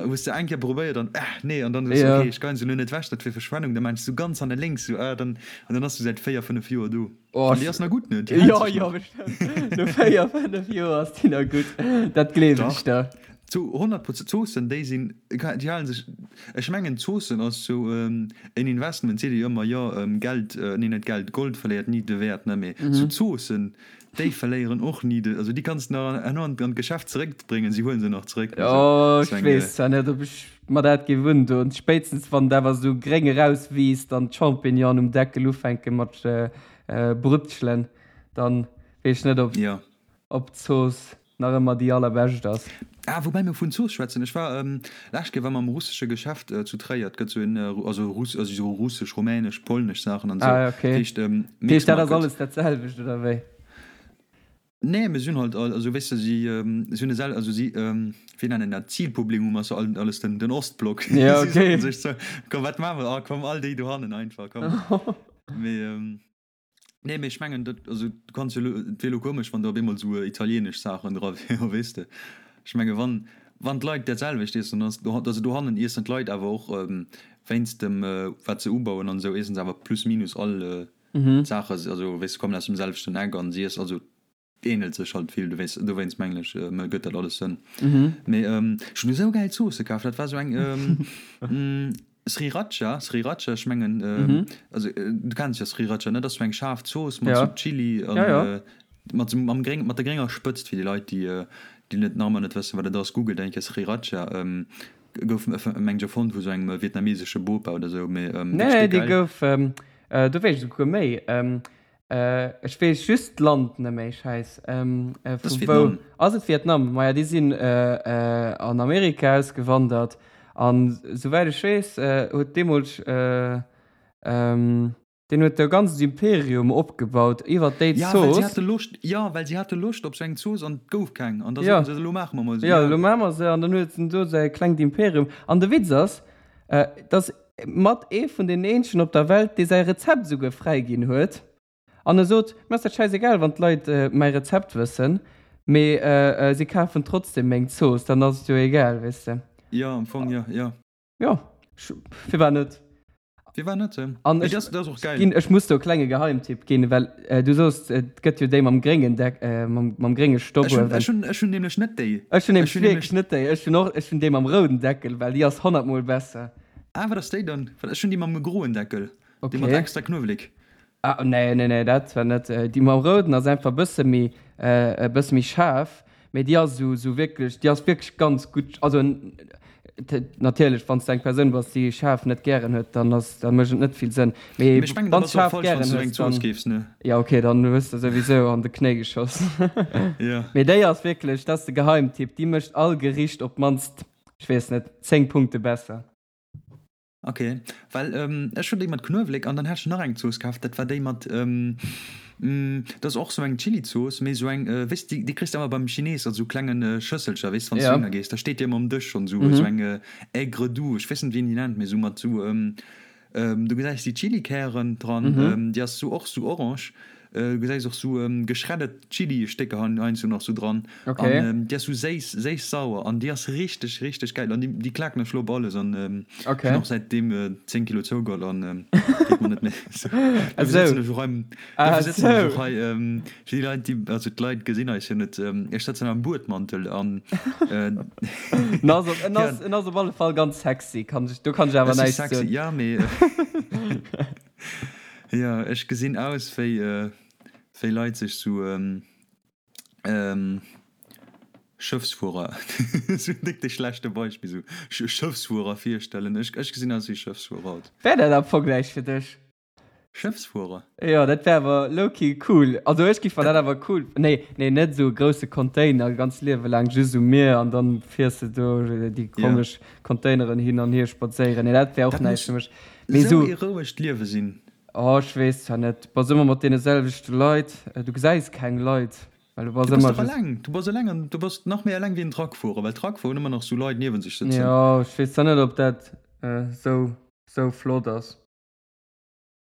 hues de eng Kéier probéiert an, ah, nee, an dann hues de, okay, ech geien se elo net ewech, dat wier Verschwendung, dann maachen se esou ganz hanne lénks, esou, ah, dann, an dann ass se säit 4, 5 Joer do. Oh, An déi ass nach gutt, ne? Déi hält sech nach. Jo, jo, bestimmt. No 4, 5 Joer ass déi nach gutt. Dat gleewen ech der. Zu 100 Prozent, Zoossen déi sinn, déi halen sech, ech mengen Zoossen ass sou en Investment, seet ee jo ëmmer, jo Geld, nee net Geld, Gold verléiert ni de Wäert, ne, mee sou Zoossen déi verléieren och ni de, also déi kanns de nach herno an d'Geschäft zeréckbréngen, si huelen se nach zeréck. Jo, ech weess zwar net ob ech mer dat géif undoen, spéitstens wann et awer sou gréng erauswiisst an d'Champignonen um Deckel ufänke mat brutschelen, dann weess ech net ob d'Zooss nach ëmmer déi allerbescht ass. Ah, woubäi mir vun Zooss schwätzen, ech war lescht Kéier war mer am russesche Geschäft zu Tréier, et gëtt sou en, also Russ, also sou russesch, rumänesch, polnesch Saachen an sou, Ah, okay. dat heescht Dat heescht, dat ass alles dat selwecht, oder wéi? Nee, mee si hunn halt all, also weess de, si si hunn e sel, also si, wéi nennen dat, Zilpublikum ass jo alles den den Ostblock. Ja, okay. Si soten sech sou, komm wat maache mer, ah komm all déi dohannen einfach, komm. Mee. Nee, mee ech mengen dat, also du kanns jo elo, et wier elo komesch wann do op eemol esou italienesch Saachen dra wieren, weess de. Ech menge wann, wann d'Leit dat selwecht iessen, dann ass, also dohannen iessen d'Leit awer och wéinst dem wat se ubauen an esou, iessen se awer plus minus all d'Saache, also weess de, kommen aus dem selwechten Eck an si iessen, also Ähnelt sech halt vill, dowéinst mengen ech gëtt dat alles Sënn. Mee ech hunn esou gäil Zoosse kaf, dat war esou eng Sriracha, Sriracha, ech mengen also du kenns jo Sriracha ne, dat ass esou eng schaarf Zooss mat sou Chili an mat sou mam gréng mat der grénger Spëtzt, fir déi Leit déi déi net nach ëmmer net wëssen wat et ass, googelt eng Kéier Sriracha, gouf mengen ech erfonnt vu sou engem vietnamesesche Bopa oder sou, mee wierklech déi gäil. Nee, déi gouf, do weess ech esouguer méi. Ech weess just d'Land net méi, schäiss. Vu wou ass et? Vietnam. Maja, déi sinn an Amerika ausgewandert an souwäit ech weess huet deemools deen huet e ganzt Imperium opgebaut iwwer déi Zooss. Ja, well si hate Loscht, jo, well si hate Loscht op sou eng Zooss an et gouf keng an da soten se, elo maache mer mol sou. Jo, elo maache mer se an dann huet en do säi klengt Imperium. An de Witz ass, dass mat ee vun den eenzegen op der Welt, dee säi Rezept esouguer fräiginn huet. An e sot, Mir ass dat schäisegal, wann d'Leit mäi Rezept wëssen, mee si kafen trotzdem meng Zooss, dann ass et jo egal, weess de. Jo, am Fong jo, jo. Jo, firwat net? Firwat net? An Mee ech, dat ass och geil. ginn, ech muss do e klenge Geheimtipp ginn, well du soos, et gëtt jo déi mam gréngen Deck, mam, mam grénge Ech hunn, Stobbuewen. ech hunn, ech hunn nämlech net déi. Ech hunn Ech nämlech hunn nämlech. wierklech net déi. Ech hunn och, ech hunn déi mam rouden Deckel, well déi ass honnertmol besser. Ah, wat ass déi dann? Well ech hunn déi mam groen Deckel, déi mat Okay. extra Knuewelek. Ah, nee, nee, nee, dat zwar net. Déi mam rouden ass einfach e bësse méi, e bësse méi schaarf. Mee déi ass esou, esou wierklech, déi ass wierklech ganz gutt. Also natierlech, wann s de eng Persoun bass, déi schaarf net gären huet, dann ass, da mécht et net vill Sënn. Mee Mee ech mengen, da wann s bass de och schaarf falsch, wann gären s du eng hues, Zooss dann, keefs, ne? jo okay, dann hues de souwisou an de Knéi geschoss. Jo. Mee déi ass wierklech, dat ass de Geheimtipp, déi mécht all Gericht op d'mannst, ech weess net, 10 Punkte besser. Ok, well ech hunn déi mat Knuewelek an dann hat ech nach eng Zooss kaf, dat war déi mat, dat ass och sou eng Chilizooss, mee sou eng, weess de, déi kriss de ëmmer beim Chines an sou klengen Schësselcher, weess de, wann s du Ja. hinner gees, da steet déi ëmmer um Dësch schonn, sou sou eng Aigre doux, ech weess net wéi een déi nennt, mee sou mat sou, du gesäis déi Chilikären dran, déi ass sou och sou orange. Du gesäis och sou geschreddet Chili-Stécker heiansdo nach sou dran. Okay. An déi ass sou séiss, séiss-sauer an déi ass richteg, richteg gäil. An déi, déi klaken ech lo op alles an ech Okay. hunn och säitdeem 10 Kilo zougeholl an geet mer net méi sou. Dofir sëtzen ech och hei, Ah dofir sëtzen ech sou. och hei, fir déi Leit, déi, also d'Leit gesinn eis jo net, ech sëtzen am Buedmantel an En ass op, en ja. ass, en ass op alle Fall ganz sexy, kann ech, do kann ech awer Ech si näischt sexy, soen. ja, mee Jo, ech gesinn aus wéi wéi Leit sech sou Schëffsfuerer, sou déck de schlechte Beispill, sou Schëffsfuerer virstellen. Ech ech gesinn aus wéi Schëffsfuerer haut. Wär dat am Fong näischt fir dech? Schëffsfuerer? Jo, dat wär awer lowkey cool. Also ech giff mer dat awer cool, nee, nee, net sou e grousse Container ganz Liewe laang just um Mier an dann fiers de do déi komesch Containeren hin an hier spadséieren. Nee, dat wär och Dat näischt muss fir mech. Mee Esou sou. ee rouegt Liewe sinn. Oh, ech weess zwar net. Du bass ëmmer mat deene selwechte Leit. Du gesäis keng Leit, well du bass Du bass ëmmer dach just. eleng. Du bass eleng an du bass nach méi eleng wéi en Truckfuerer, well Truckfuerer hunn ëmmer nach sou Leit niewen sech sëtzen. Jo, ech weess zwar net, ob dat sou, sou flott ass.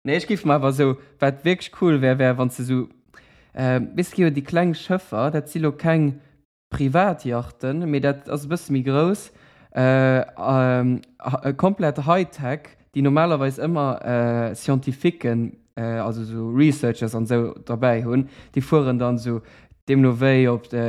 Nee, ech géif mer awer sou, wat wierklech cool wär, wär, wann s de sou, weess de, gi jo déi kleng Schëffer, dat si lo keng Privatyachten, mee dat ass e bësse méi grouss, komplett Hightech, déi normalerweis ëmmer Scientifiquen, also esou Researchers an esou derbäi hunn. Déi fueren dann esou deemno wéi op de,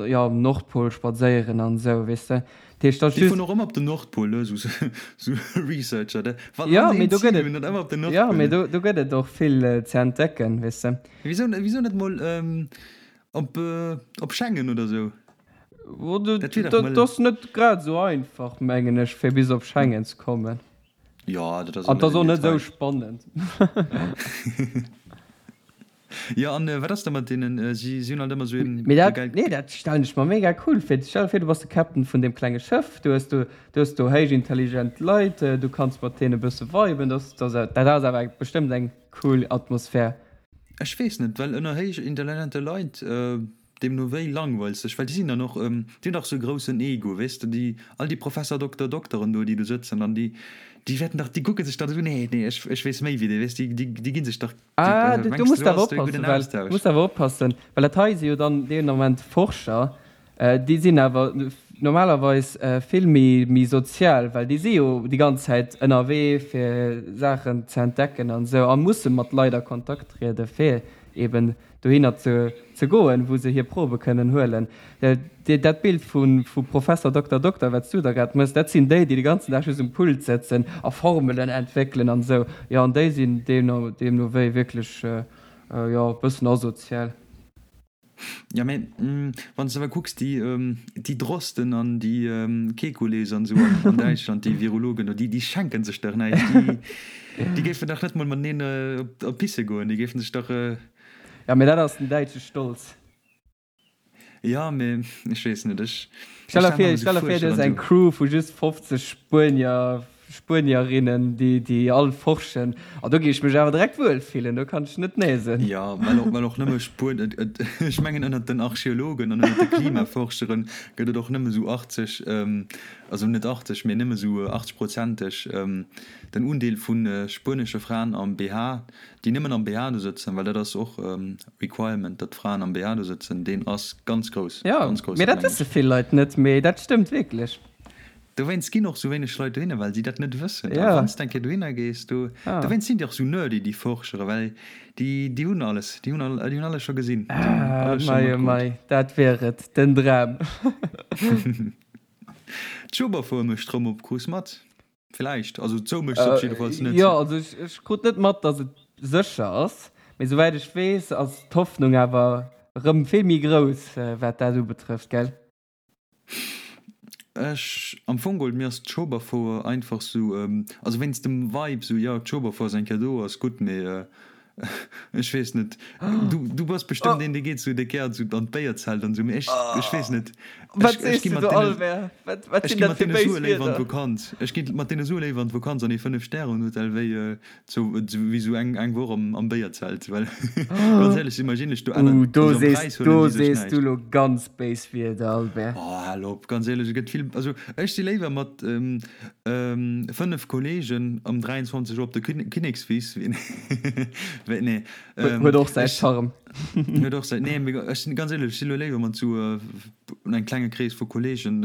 jo, um Nordpol spadséieren an esou, weess de. Dat heescht, dat ass Déi just. fueren och ëmmer op den Nordpol, ne, esou Researcher, de. Wann Jo, se mee een do Zil gëtt et, hunn, dann ëmmer op den jo, Nordpol, mee ne. do, do gëtt et och vill ze entdecken, weess de. Wisou, wisou net mol Op, op Schengen oder sou? Dat wier dach mol. Ass net grad esou einfach, mengen ech, fir bis op Schengen ze kommen. Jo, dat ass och net esou An dat ass och net esou spannend. Jo, an wat ass da mat deenen, si hunn alt ëmmer esou een Mee dat, geilt. nee, dat stellen ech mer mega cool vir. Stell der vir, du bass de Captain vun deem klenge Schëff, du hues do, du hues do héich intelligent Leit, du kanns mat deene e bësse viben, dat, dat ass awer bestëmmt eng cool Atmosphär. Ech weess net, well ënner héich intelligente Leit, deemno wéi langweils sech, well déi sinn dann och, déi hunn dach sou e groussen Ego, weess de, déi, all déi Professer, Dokter, Dokteren do, déi do sëtzen an déi, déi wäerten dach, déi kucke sech dach esou, nee, nee, ech, ech weess méi wéi dee, weess de, déi, déi gi sech dach, déi, Ah, du mengs muss de, do awer ass do e oppassen, gudden well, Austausch? muss awer oppassen, well dat hei si jo dann deen Ament Forscher, Déi sinn awer normalerweis vill méi sozial, well déi si jo déi ganz Zäit ënnerwee fir Saachen ze entdecken an esou a musse mat Leit a Kontakt triede fir eben dohinner ze goen, wou se hir Probe kënnen huelen. Dat Bild vu Professer Dokter Dokter, wat s du da grad méchs, dat sinn déi, déi de ganzen Dag just um Pult sëtzen a Formelen entwéckelen an esou. Jo, an déi sinn deemno wéi wierklech, jo, e bëssen asozial. Ja, mä wann s de awer kucks, déi, déi Drosten an déi Kekulés an esou an, an Däitschland, déi Virologen do, déi, déi schenken sech dach näischt. Déi, déi géifen dach net mol mateneen op, op pisse goen. Déi géifen sech dach. Ja, mä dat ass den däitsche Stolz. Ja, mä ech weess net, ech, Stell ech der stelle mer vir, esou stell der vir, du hues Fuerscheren eng esou. Crew vu just 50 Spuenier, Spuenierinnen, déi, déi all forschen. A do géif ech mech awer direkt wuel fillen, do kann ech net nee soen. Jo, well och, well och nëmme Spuen, et, et, ech mengen ënnert den Archeologen an ënnert de Klimaforschere gëtt et och nëmme sou 80, also net 80, mee nëmme sou 80 prozenteg den Undeel vu spuenesche Fraen am BH, déi nëmmen am BH do sëtzen, well dat ass och Requirement, datt d'Fraen am BH do sëtzen, deen ass ganz grouss, Jo, ganz grouss, mee dat dat mengen wësse ech. vill Leit net, mee dat stëmmt wierklech. Dowéinst ginn och sou wéineg Leit dohinner, well si dat net wëssen. A wann s de eng Kéier dohinner gees, do, dowéinst sinn déi och sou nerdy, déi Forschere, well déi, déi hunn alles, déi hunn all, déi hunn alles scho gesinn, déi hunn Ah, alles scho mei oh matkrut. mei, dat wär et, den Dram. D'Schueberfouer mécht rëm op, krus mat? Villäicht, also zou mécht se op jiddefalls net. Jo, also ech, ech krut net mat, datt et sécher ass, mee souwäit ech weess, ass d'Hoffnung awer rëm vill méi grouss, wat dat ubetrëfft, gell? Ech, am Fong geholl, mir ass d'Schueberfouer einfach sou, also wéinst dem Vibe sou, jo d'Schueberfouer ass eng Kéier do, ass gutt, mee ech weess net, du, du bass bestëmmt een dee geet sou, dee gären sou an d'Béierzelt an sou, mee ech, ech weess net, Wat ech, ech sees gi du mat do, deene, Albert? Wat, wat ech sinn gi dat mat fir deene béis Sue léiwer an Wierder? d'Vakanz, ech gi mat deene Sue léiwer an d'Vakanz an ee Fënnef-Stären-Hotel wéi Sou wéi sou eng eng Woch am am Béierzelt, well ganz éierlech imagine ech do Uh, ënnert do also am sees, Präis huelen do déi sech sees du näischt. lo ganz béis Wierder, Albert. Oh, hal op, ganz éierlech, et gëtt vill, also ech si léiwer mat 5 Kollegen um 23 Auer op der Kinnekswiss wéi wéi nee, Huet och säi ech Charme. huet och säi, nee, mee ech sinn ganz éierlech, ech si lo léiwer mat sou engem klenge Krees vu Kollegen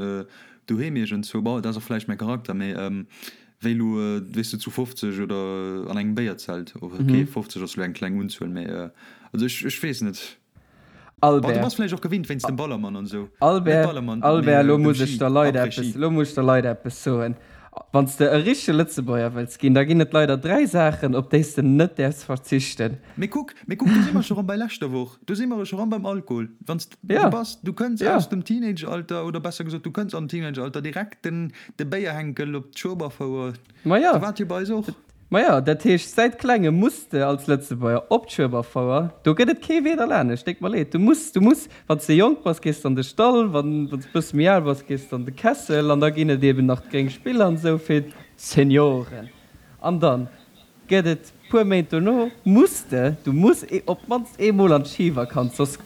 doheem iergendzwou, bon, dat ass och vläicht mäi Charakter, mee Wéi elo, weess de, zu 50 oder an engem Béierzelt. Ok, 50 ass elo eng kleng Unzuel, mee also ech, ech weess net. Bon, du Albert. bass vläicht och gewinnt wéinst dem Ballermann an esou. Net Albert, Ballermann, mee Albert, elo dem muss ech Ski, der Leit eppes, Après-Ski. elo muss ech der Leit eppes soen. Wann s de e richtege Lëtzebuerger wëlls ginn, da ginn et leider 3 Saachen, op déi s de net däerfs verzichten. Mee kuck, mee kuck, do si mer scho rëm bei leschter Woch, do si mer scho rëm beim Alkohol. Wann s du Ja, bass, du kënns ja. aus dem Teenageralter, oder besser gesot, du kënns am Teenageralter direkt den, de Béierhenkel op d'Schueberfouer. Ma ja. Sou war et jo bei eis och. Ma ja, dat heescht, säit Klengem muss de als Lëtzebuerger op d'Schueberfouer. Do gëtt et kee Wee derlaanescht, déck mer leed. Du muss, du muss, wann s de jonk bass, gees de an de Stall, wann, wann s de bësse méi al bass, gees de an de Kessel an da ginn et eben nach d'gréng Spiller an esou fir d'Senioren. An dann Gëtt et puer Méint dono, muss de, du muss op d'mannst eemol an d'Schivakanz, soss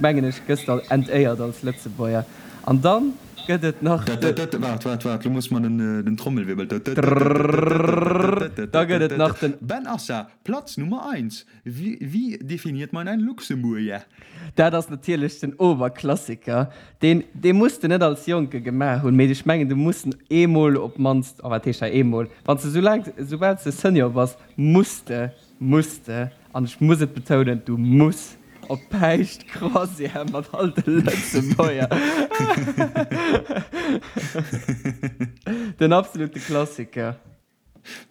mengen ech gëss de entéiert als Lëtzebuerger. An dann gëtt et nach de. Waart, waart, waart, lo muss mer den Trommelwirbel. Da gëtt et nach den. Ben Assa, Platz Nummer eins, Wie definiert man einen Luxemburger? Dat ass natierlech den Oberklassiker. Deen, dee muss de net als Jonke gemaach hunn, mee ech mengen, du muss en eemol op d'mannst, oh wat heescht hei eemol, wann s de soulaang, soubal s de Senior bass, muss de, muss de, an ech muss et betounen, du muss op Päischt-Croisière mat all de Lëtzebuerger. Den absolute Klassiker.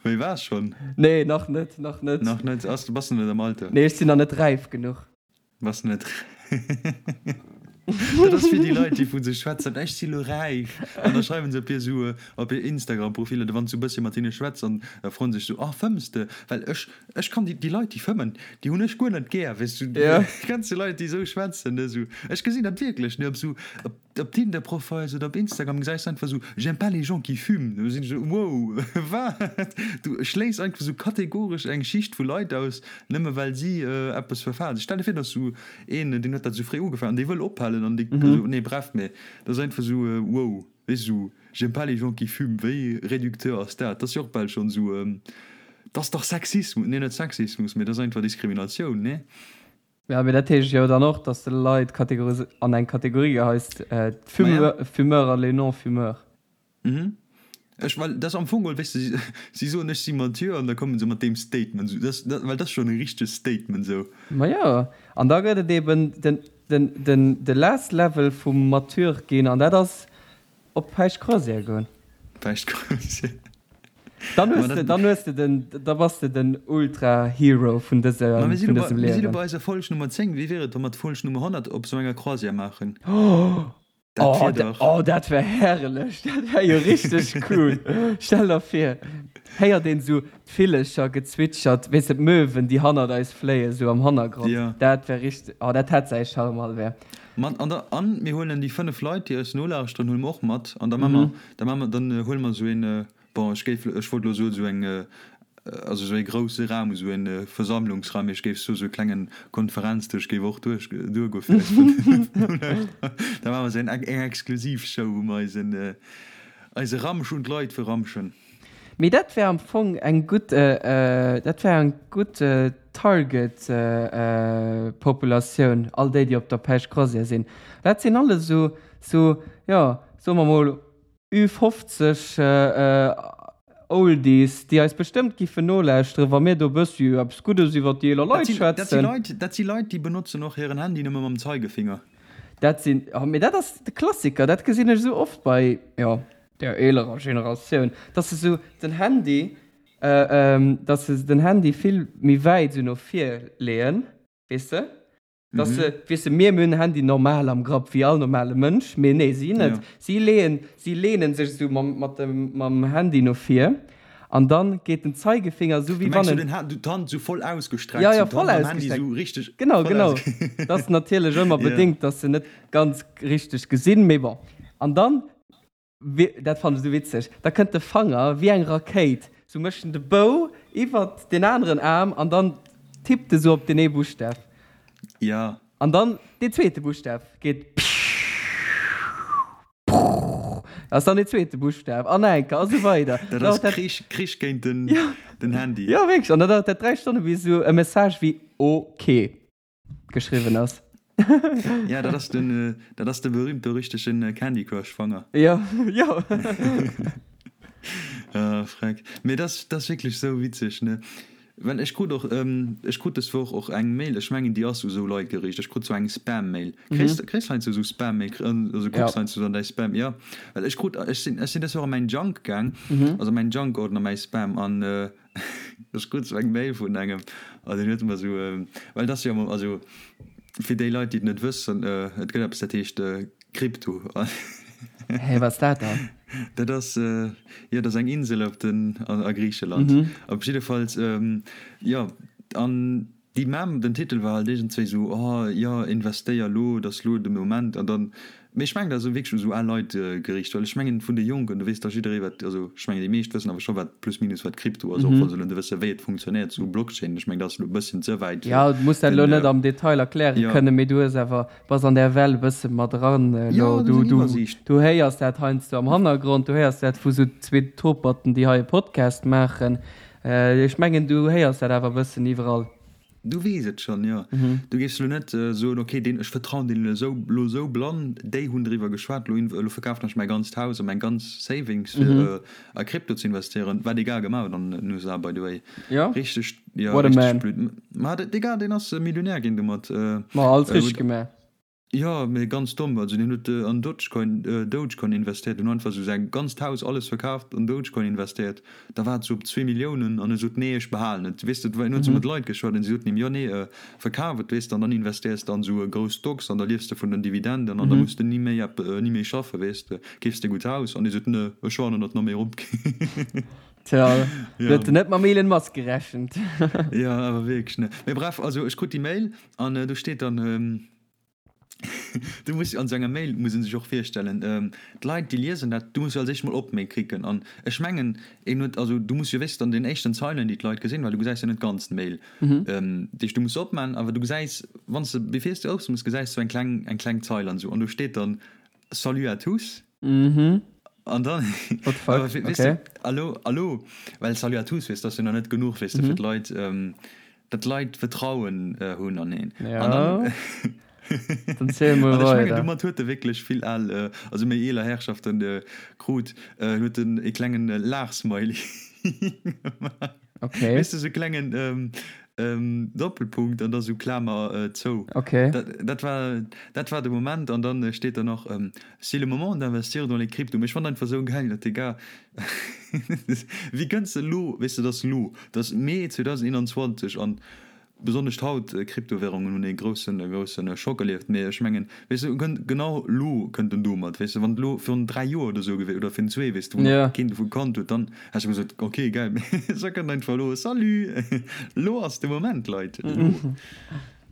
Wéi war schonn? Nee, nach net, nach net. Nach net? Ass, bass de net am Alter? Nee, ech sinn nach net räif genuch. Bass de net Dat ass wéi déi Leit, déi vu sech schwätzen, ech si lo räif. An da schreiwen se op hir sou, op hir Instagram-Profiler, wann s du e bëssche mat hinne schwätz an da froen se sech sou, ah fëmms de? Well ech, ech kann déi, déi Leit, déi fëmmen, déi hunn ech guer net gär, weess du. Ja. Kenns du Leit, déi esou schwätzen, ne, sou, ech gesinn dat wierklech, ne, op sou, op. Op Tinder Profiles oder op Instagram gesäis de einfach sou j'aime pas les gens qui fument. Do sinn ech sou wow, wat? Du schléiss einfach sou kategoresch eng Schicht vu Leit aus, nëmme well si eppes verfalen. Stell der vir, et ass sou een, deen huet dat sou fréi ugefaangen an dee wëll ophalen an dee, also nee bref, mee dat ass einfach sou wow, weess du, sou j'aime pas les gens qui fument, wéi réducteur ass dat? Dat ass jo och bal schonn sou, dat ass dach Sexismus, nee net Sexismus, mee dat ass einfach Diskriminatioun, nee? Ja, mee dat heescht jo dann och, dass de Leit kategoris an eng Kategorie geheis, d'Fumeur an les non-fumeurs. Mhm. Ech, well dat ass am Fong geholl, weess de, si soen, ech si mature an da komme se mat deem Statement esou. Dat, dat, well dat ass schonn e richtegt Statement esou. Ma jo, an da gëtt et eben den, den, den, de last level vum mature ginn an dat ass Op Päischt-Croisière goen. Päischt-Croisière. Dann hues de, dann hues de den, da bass de den Ultra-Hero vun dësem, Ma mir si vun lo bei, dësem mir si lo Liewen. bei eiser Folg Nummer 10. Wéi wier et, wa mer d'Folg Nummer 100 op esou enger Croisière maachen? Dat Oh, wier da, dach. oh, dat wär herrlech. Dat wär jo richteg cool. Stell der vir, héiert een esou d'Villecher gezwitschert, weess de, d'Möwen, déi hannert eis fléien, esou am Hannergrond. Ja. Dat wär richteg, oh, dat hätt säi Charme, Albert. Mat an der, an mir huelen déi 5 Leit, déi eis nolauschteren, huele mer och mat an da maache mer, da maache mer, dann huele mer esou een, bon, ech géif, ech wollt elo soen, esou eng, also esou ee grousse Raum, esou e Versammlungsraum, mee ech géif soen, esou e klengen Konferenzdësch géif och duerch, duergoe fir eis 5 Nolauschterer. Da maache mer esou eng, eng exklusiv Show, wou mer eisen, eise Ramsch un d'Leit verramschen. Mee dat wär am Fong eng gutt, dat wär eng gutt Target Populatioun, all déi, déi op der Päischt Croisière sinn. Dat sinn alles esou, esou, jo, soe mer mol, Ü50 Oldies, déi eis bestëmmt giffen nolauschteren, wa mir do e bëssi eppes Guddes iwwer déi eeler Leit schwätzen. Dat si Leit, déi benotzen och hiren Handy nëmme mam Zeigefinger. Dat sinn, oh, mee dat ass de Klassiker, dat gesinn ech esou oft bei, jo, der eelerer Generatioun, dass se esou den Handy, dass se den Handy vill méi wäit esou no vir leeën, weess de? Dass se, weess de, mir, mir hunn den Handy normal am Grapp, wéi all normale Mënsch, mee nee, si net. Si leeën, si leenen sech esou mam, mat dem, mam Handy no vir an dann geet den Zeigefinger esou wéi wann en. Du mengs, d'Hand esou voll ausgestreckt, Ja, ja, voll ausgestreckt. Esou richteg. Genau, genau. Dat ass natierlech ëmmer bedéngt, dass se net ganz richteg gesinn, mee bon. An dann Dat fannen ech esou witzeg. Da kënnt de Fanger wéi eng Rakéit, sou mécht en de Bou iwwert deen aneren Aarm an dann tippt e sou op deen ee Buschtaf. Ja. An dann deen zweete Buschtaf geet pprrr, dat ass dann deen zweete Buschtaf an nach eng Kéier a sou weider. Dat ass Krich, Krich géint den Handy. Jo, wierklech. An da dauert dat 3 Stonne bis esou e Message wéi ok. Geschriwwen ass. Ja, dat ass den, dat ass de berühmt-berüchtegten Candy Crush Fanger. Jo, jo. Ah, freck. Mee dat ass, dat ass wierklech sou witzeg, ne? Well ech krut och, ech krut des Woch och eng Mail, ech mengen déi ass u sou Leit geriicht, ech krut sou eng Spam-Mail. Kriss, kriss heiansdo sou Spam-Mail, also kucks heiansdo an däi Spam? Jo, well ech krut, ech sinn, ech sinn des Woch a mäin Junk gaang, also mäin Junk-Ordner, mäi Spam, an Ech krut sou eng Mail vun engem an deen huet mer sou, well et ass jo also fir déi Leit déi et net wëssen, et gëtt eppes dat heescht Krypto. Hä, wat ass dat dann? Dat ass, jo dat ass eng Insel op den a Griicheland. Op jiddefalls, jo an déi Mem, den Titel war halt iergendzwéi sou, oh jo investéier lo, et ass lo de Moment an dann Mee ech mengen, dat ass wierklech u sou al Leit geriicht, well ech mengen, vun de Jonken, do weess dach jidderee wat, also ech mengen, déi meescht wëssen awer scho wat plus minus wat Krypto ass, och wa se elo net wësse wéi et funktionéiert, sou Blockchain, ech mengen, dat ass elo e bësschen ze wäit fir Jo, du muss dat elo den, net am Detail erkläre jo. kënnen, mee du hues awer, bass an där Well e bësse mat eran elo. Jo, du hues eng Du, Iwwersiicht. du héiers dat heiansdo am Hannergrond, du héiers dat vu sou zwee Toperten, déi hei e Podcast maachen. Ech mengen, du héiers dat awer e bëssen iwwerall. Du weess et schonn, jo. Du géifs elo net soen, ok, deen, ech vertrauen deenen elo elo esou blann, déi hunn driwwer geschwat, elo elo verkafen ech mäi ganzt Haus a meng ganz Savings fir a Krypto ze investéieren, wat dee Gars gemaach huet an den USA by the way. Jo, Richteg, jo, what a richteg man. blöd. Ma de Gars, deen ass Millionär ginn domat. Ma alles richteg gemaach. Jo, mee ganz domm. Also deen huet an Dogecoin, Dogecoin investéiert, en huet einfach sou säin ganzt Haus, alles verkaaft, an Dogecoin investéiert. Da war et sou op zwee Milliounen an e sot, nee, ech behalen et. Weess de, en huet sou mat Leit geschwat an si soten him, jo, nee, verkaf et, weess de, an dann investéiers de an sou grouss Stocks an da liefs de vun den Dividenden an da muss de ni méi ep, ni méi schaffen, weess de, keefs de e gutt Haus. An hie sot, ne, ech waarden, datt nach méi erop geet. Tja, do huet en net mam Elon Musk gerechent. Jo, awer wierklech, ne. Mee bref, also ech krut déi Mail an do steet dann, Du muss an sou enger Mail, muss een sech och virstellen, d'Leit déi liesen dat, du muss jo als éischt mol op Mail klicken an ech mengen een huet, also du muss jo wéisst an den éischten Zeilen déi d'Leit gesinn, well du gesäis jo net d'ganz Mail, dat heescht du muss se opman, awer du gesäis wann s de bevir s de opmooss gesäis du eng kleng eng kleng Zeil an esou an do steet dann Salut à tous an dann What the fuck, awer weess de, allo allo, well Salut à tous weess de ass jo nach net genuch weess de fir d'Leit. Datt d'Leit Vertrauen hunn an een. Ja. An dann, dann ziel mol an ech mengen, weider. domat huet e wierklech vill al, also méi eeler Herrschaften krut, huet en e klengen Laachsmiley gemaach. Okay. Weess de, sou e klengen Doppelpunkt an da sou Klamer zou. Okay. Dat, dat war, dat war de Moment. An dann steet da nach, C'est le moment d'investir dans les cryptos. Mee ech fannen einfach sou gäil, datt dee Gars, Wéi kënns de elo, weess de, et ass elo, et ass Mee 2021 an besonnesch haut, Kryptowährungen hunn ee groussen, e groussen Schock erlieft, mee ech mengen, weess de, kënnt genau elo kënnt en domat, weess de, wann et elo virun 3 Joer oder esou gewiescht oder virun zwee, weess de, wou nach keen dovu kannt huet, dann häss ech gesot, ok, gäil, mee se kënnt einfach elo, salut, elo ass de Moment, Leit, elo. Bon,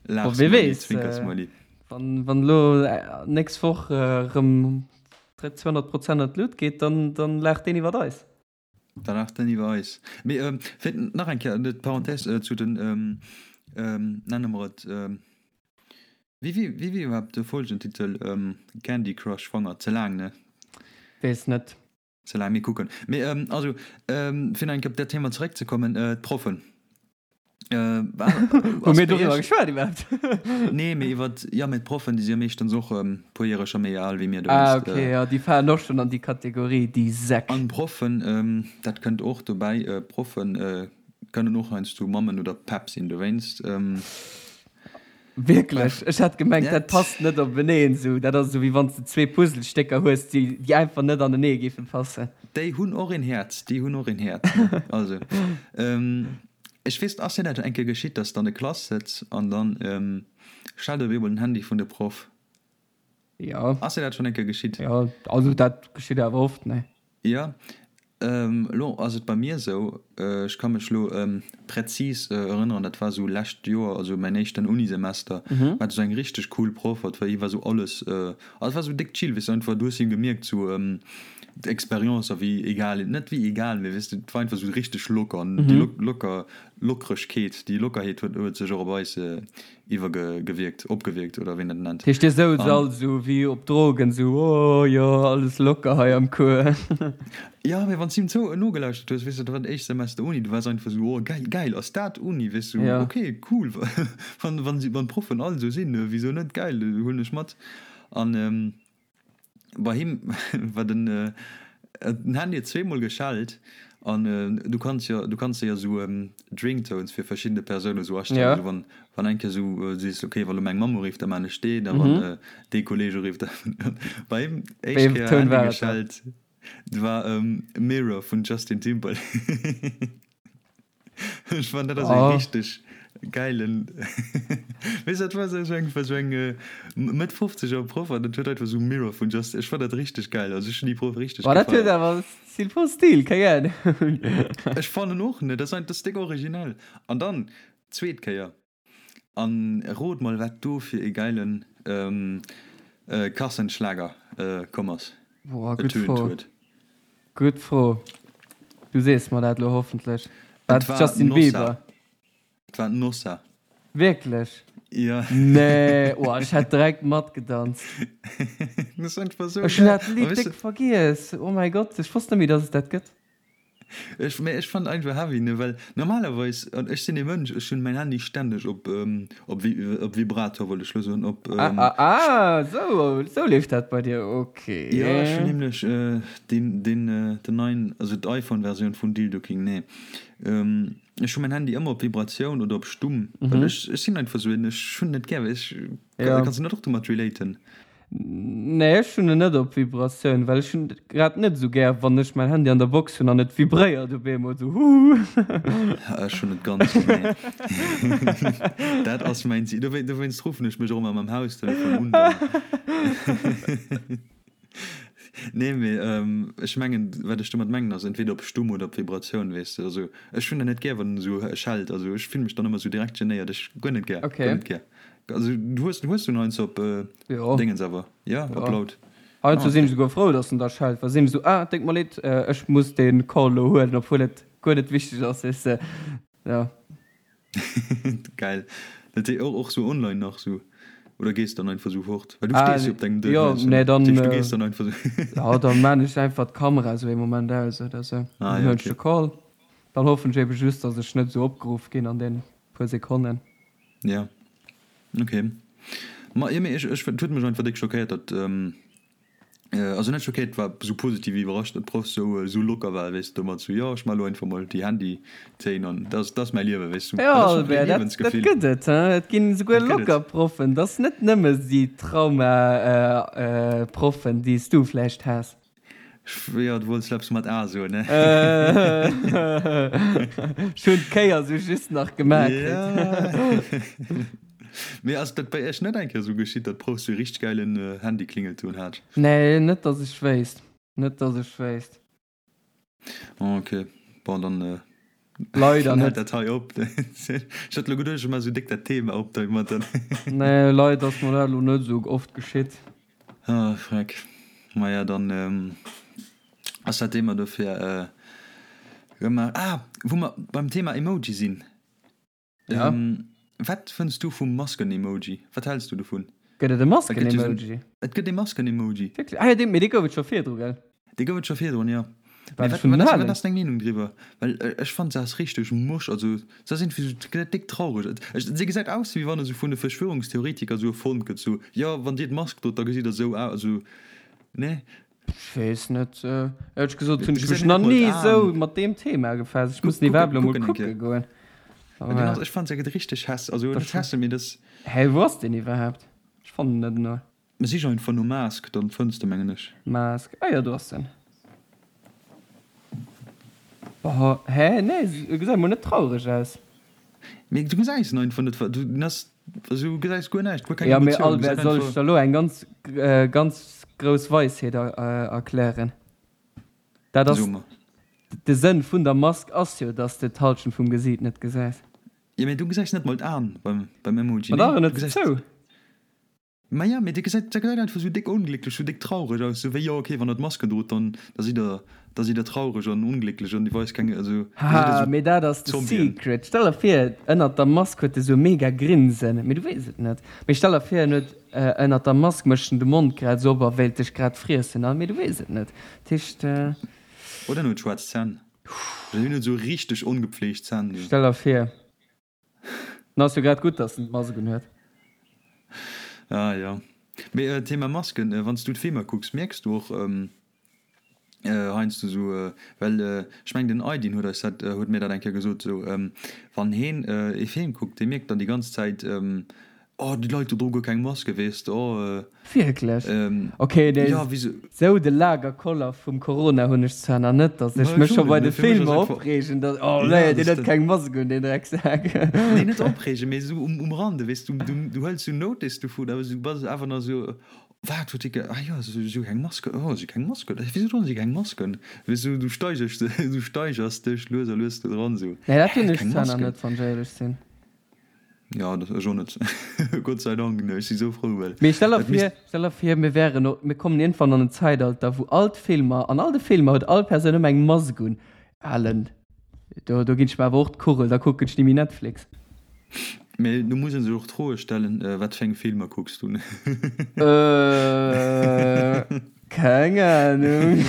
wie Laachsmiley, weess, Zwinkersmiley. wann, wann elo nächst Woch erëm 200 Prozent an d'Lut geet, dann, dann laacht deen iwwert eis. Da laacht deen iwwer eis. Mee ähm, fir nach eng Kéier d'Parenthèse äh, zu den, ähm, ähm, nenne mer et, ähm, wéi, wéi, wéi wier iwwerhaapt de Folgentitel? Ähm, Candy Crush Fanger, ze laang, ne? Weess net. Ze laang, mir kucken. Mee ähm, also, ähm, fir nach eng Kéier op dat Thema zeréckzekommen, äh, d'Proffen. Hu mir doriwwer geschwat iwwerhaapt? Nee, mee iwwer, jo, mee d'Proffen, déi si jo meeschtens och e puer Jore scho méi al wéi mir Ah, dowéinst. okay, jo, déi falen och schonn an déi Kategorie, déi Säck. An Proffen, dat kënnt och dobäi, Proffen kënnen och heiansdo Mammen oder Päpp sinn, dowéinst. Wierklech? Ech hat gemengt, dat passt net openeen esou. Dat ass esou, wéi wann s de zwee Puzzlestécker hues, déi, déi einfach net anenee géife passen. Déi hunn och een Häerz, déi hunn och een Häerz, ne? Also, ech weess, ass dir dat eng Kéier geschitt, dass de an der Klass sëtz an dann schellt op eemol den Handy vun de Proff? Jo. Ass dir dat schonn eng Kéier geschitt? Jo, also dat geschitt awer oft, ne? Jo, elo ass et bei mir esou, ech ka mech elo präzis erënneren, dat war esou lescht Joer, also mäin éischten Unisemester, war esou eng richteg cool Proff, et war hie war esou alles, also et war esou déck chill, weess de, einfach du hues him gemierkt esou d'Expérience a wéi egal, net wéi egal, mee weess de, et war einfach esou richteg locker an déi locker Lockeregkeet, déi Lockerheet huet sech och op eis iwwergewierkt, opgewierkt oder wéi een dat nennt. Heescht dir souz all sou wéi op Drogen, sou oh jo alles locker hei am Cours. Jo, mee wann s du him zou nogelauschtert hues, weess de, dat war den éischte Semester Uni, du waars einfach sou oh geil, geil, ass dat Uni, weess du, ok cool, wann wann d'Proffen all sou sinn, wisou net, geil, huelen ech mat. An Bei him war den den Handy huet zweemol geschellt an du kanns jo du kanns jo esou d'Ringtones fir verschiddene Persounen esou astellen, esou wann wann eng Kéier esou sees ok wa lo meng Mamm urifft da maan ech deen a wann dee Kolleg urifft da bei him éischt Kéier Handy geschellt war Mirror vun Justin Timberlake. Ech fannen dat ass e richteg gäilen weess dat war esou eng war esou eng Mëtt fofzeger Proff an dat huet einfach esou Mirror vun Just ech fannen dat richteg gäil also ech hunn déi Proff richteg Boah dat huet gefeiert. awer Stil voll Stil keng Ahnung. Ech fannen och ne dat ass dat ass déck originell an dann zweet Kéier An rot mol wat do fir ee geilen Kassenschlager komm ass, Boah, gutt ertönt Fro. huet. Gutt Fro. Du sees mer dat lo hoffentlech. War Et et war Justin Nossa. Bieber? Et war Nossa. Wierklech? Jo. Nee, oh, ech hätt direkt matgedanzt. Dat ass einfach sou Ech hunn geil. dat A Lidd weess déck de, vergiess. Oh mäi Gott, ech wosst net méi, dass et dat gëtt. Ech, mee ech fannen einfach heavy, ne, well normalerweis, an ech sinn ee Mënsch, ech hunn mäin Handy stänneg op, op op Vibrator wollt ech lo soen, op. Ah, ah, ah, sou, sou leeft dat bei dir, ok. Jo, ech hunn nämlech deen, deen, den neien, also d'iPhone-Versioun vun Dildo King, nee, ech hu mäin Handy ëmmer op Vibratioun oder op stumm, well ech, ech sinn einfach sou een, ech hunn net gär, ech, kanns du net och domat relaten? Nee, ech hunn en net op Vibratioun, well ech hunn et grad net esou gär, wann ech mäin Handy an der Box hunn an et vibréiert op eemol esou huhu. Ech hunn et ganz genee. Dat ass mäin Zil. Dowéinst ruffen ech mech och ëmmer mam Haustelefon un dann. Nee, mee ech mengen, wat ech domat mengen ass entweder op stumm oder op Vibratioun, weess de. Also ech hunn dat net gär, wann en esou schellt. Also ech fillen mech dann ëmmer esou direkt genéiert. Ech guer net gär, guer net gär. Also du hues, hues du en heiansdo op Jo. Dingens awer? Ja, op Ja. laut. Heiansdo Ah, sinn okay. ech esouguer frou, dass en da schellt, well sinn ech esou, ah, déngt mer leed, ech muss dee Call elo huelen, obwuel et guer net wichteg ass, weess de. Ja. Geil. Dat hee och, och sou online nach sou? Oder gees dann einfach sou fort? Well du Ah, stees jo op dengem jo, Dësch, nee, dann, dat heescht du gees dann einfach sou. Ja, dann maan ech einfach d'Kamera sou ee Moment aus oder sou. Ah, Dann ja, huelen ech okay. de Call. Dann hoffen ech ebe just, dass ech net esou opgeruff ginn an deenen puer Sekonnen. Ja ok ma jo mee ech ech et huet mech einfach déck schockéiert datt also net schockéiert war sou positiv iwwerrascht datt d'Proff sou sou locker war weess de domat sou jo ech maa lo einfach mol déi Handytéin an dat ass dat ass mäi Liewe weess du Jo dat ass schonn Albert, e dat dat Liewensgefill gëtt et hein, et ginn esouguer dat gëtt et. locker Proffen, dat ass net nëmme déi Trauma Proffen déi s du vläicht has. Jo, du wollts eppes mat A soen, ne? Ech hunn d'Kéier sou just nach gemaach kritt. Ja. Mee ass dat bei iech net eng Kéier sou geschitt, datt d'Proff sou e richteg gäilen Handyklingeltoun hat? Nee, net datt ech wéisst. Net datt ech wéisst. Ok, bon dann Leider dann hält net. dat hei op. Ech hat lo geduecht, ech maache sou déck dat Thema op domadder. Nee, leider ass mer dat lo net sou oft geschitt. Ah, freck. Maja, dann ass dat Thema dofir gemaach. Ah, wou mer beim Thema Emoji sinn. Ja. Wat fënns du vum Masken-Emoji? Wat häls du dovun? Gëtt et e Masken-Emoji? Et gëtt e Masken-Emoji. Wierklech? Ah jo, dee, mee dee gouf et scho virdru, gell? Dee gouf et scho virdrun, jo. Mee wat wat ass wat ass deng Meenung driwwer? Well ech fannen se ass richteg mosch, also se ass iergendwéi sou gesäit déck traureg, ech se gesäit aus wéi wann e sou vun de Verschwörungstheoretiker sou erfonnt gëtt, sou jo wann dir d'Mask drot da gesitt der sou aus, also nee? Ech weess net, éierlech gesot hunn ech mech nach ni sou mat deem Thema befaasst, ech muss den iwwerhaapt elo mol kucke goen. Ech fannen se gëtt richteg häss, also net hässlech mee dat. Hä wou ass deen iwwerhaapt? Ech fannen en net elo. Sich einfach no Mask, dann fënns de mengen ech. Mask, ah jo do ass en. Boah, hä nee e gesäit mol net traureg aus. Mee du gesäis en einfach net, du ass also du gesäis guer näischt, guer keng Emotioun. Ja mee Albert, soll ech der lo eng ganz ganz grouss Weisheet erklären? Dat ass de Sënn vun der Mask ass jo dass de d'Halschent vum Gesiit net gesäis. Jo mee du gesäis net mol d'Aen beim beim Emoji, nee? Ma dach en huet se zou. Maja, mee dee gesäit, dat gesäit einfach sou déck onglécklech, sou déck traureg aus, sou wéi, jo ok, wann der d'Maske drot, dann, da sidd der, da sidd der traureg an onglécklech an dir weist keng, also da sidd der Haha, sou mee dat ass de Zombien. Secret. Stell der vir, ënnert der Mask huet e sou mega Grinsen, mee du weess et net. Mee stell der vir, en huet ënnert der Mask mécht en de Mond grad sou op a wéilt dech grad friessen, a mee du weess et net. Dat heescht. Oder en huet schwaarz Zänn. Oder hien huet sou richteg ongepfleegt Zänn, sou. Stell der vir. Dann ass jo grad gutt, dass en d'Mask un huet. Ah jo. Mee Thema Masken, wann s du d'Filmer kucks, mierks du och heiansdo sou, well ech mengen den Aydin huet eis dat, huet mir dat eng Kéier gesot, sou wann heen ee Film kuckt, dee mierkt dann déi ganz Zäit, Oh, déi Leit do droe guer keng Maske, weess de. Oh, Wierklech? Ok, nee, ja, wéi se. Sou de Lagerkoller vum Corona hunn ech zwar nach net, datt ech mech scho bei de Filmer opreegen, datt, oh nee, deen huet keng Mask un, deen Drecksak. Nee, net opreegen, mee esou um Rande, weess du, du hëls sou Notice dovun, awer du bass awer nach esou, wat huet dee ge, ah jo, si hu keng Maske, oh, si hu keng Maske, wisou droen si keng Masken? Weess du, du steigers, du steigers dech lues a lues do dran, esou, Nee, dat hunn ech zwar nach net, wann ech éierlech sinn. Jo, dat ech och net. Gott sei Dank, ech si sou frou, well Mee stell der vir, stell der vir, mir wären, mir kommen iergendwann an en Zäitalter, wou all d'Filmer, an all de Filmer huet all Persoun ëmmer eng Mask un. Alen, do, do ginn ech mer awer och d'Kugel, da kucken ech ni méi Netflix. Mee do muss ee sech och d'Froe stellen, wat fir eng Filmer kucks du? Keng Ahnung.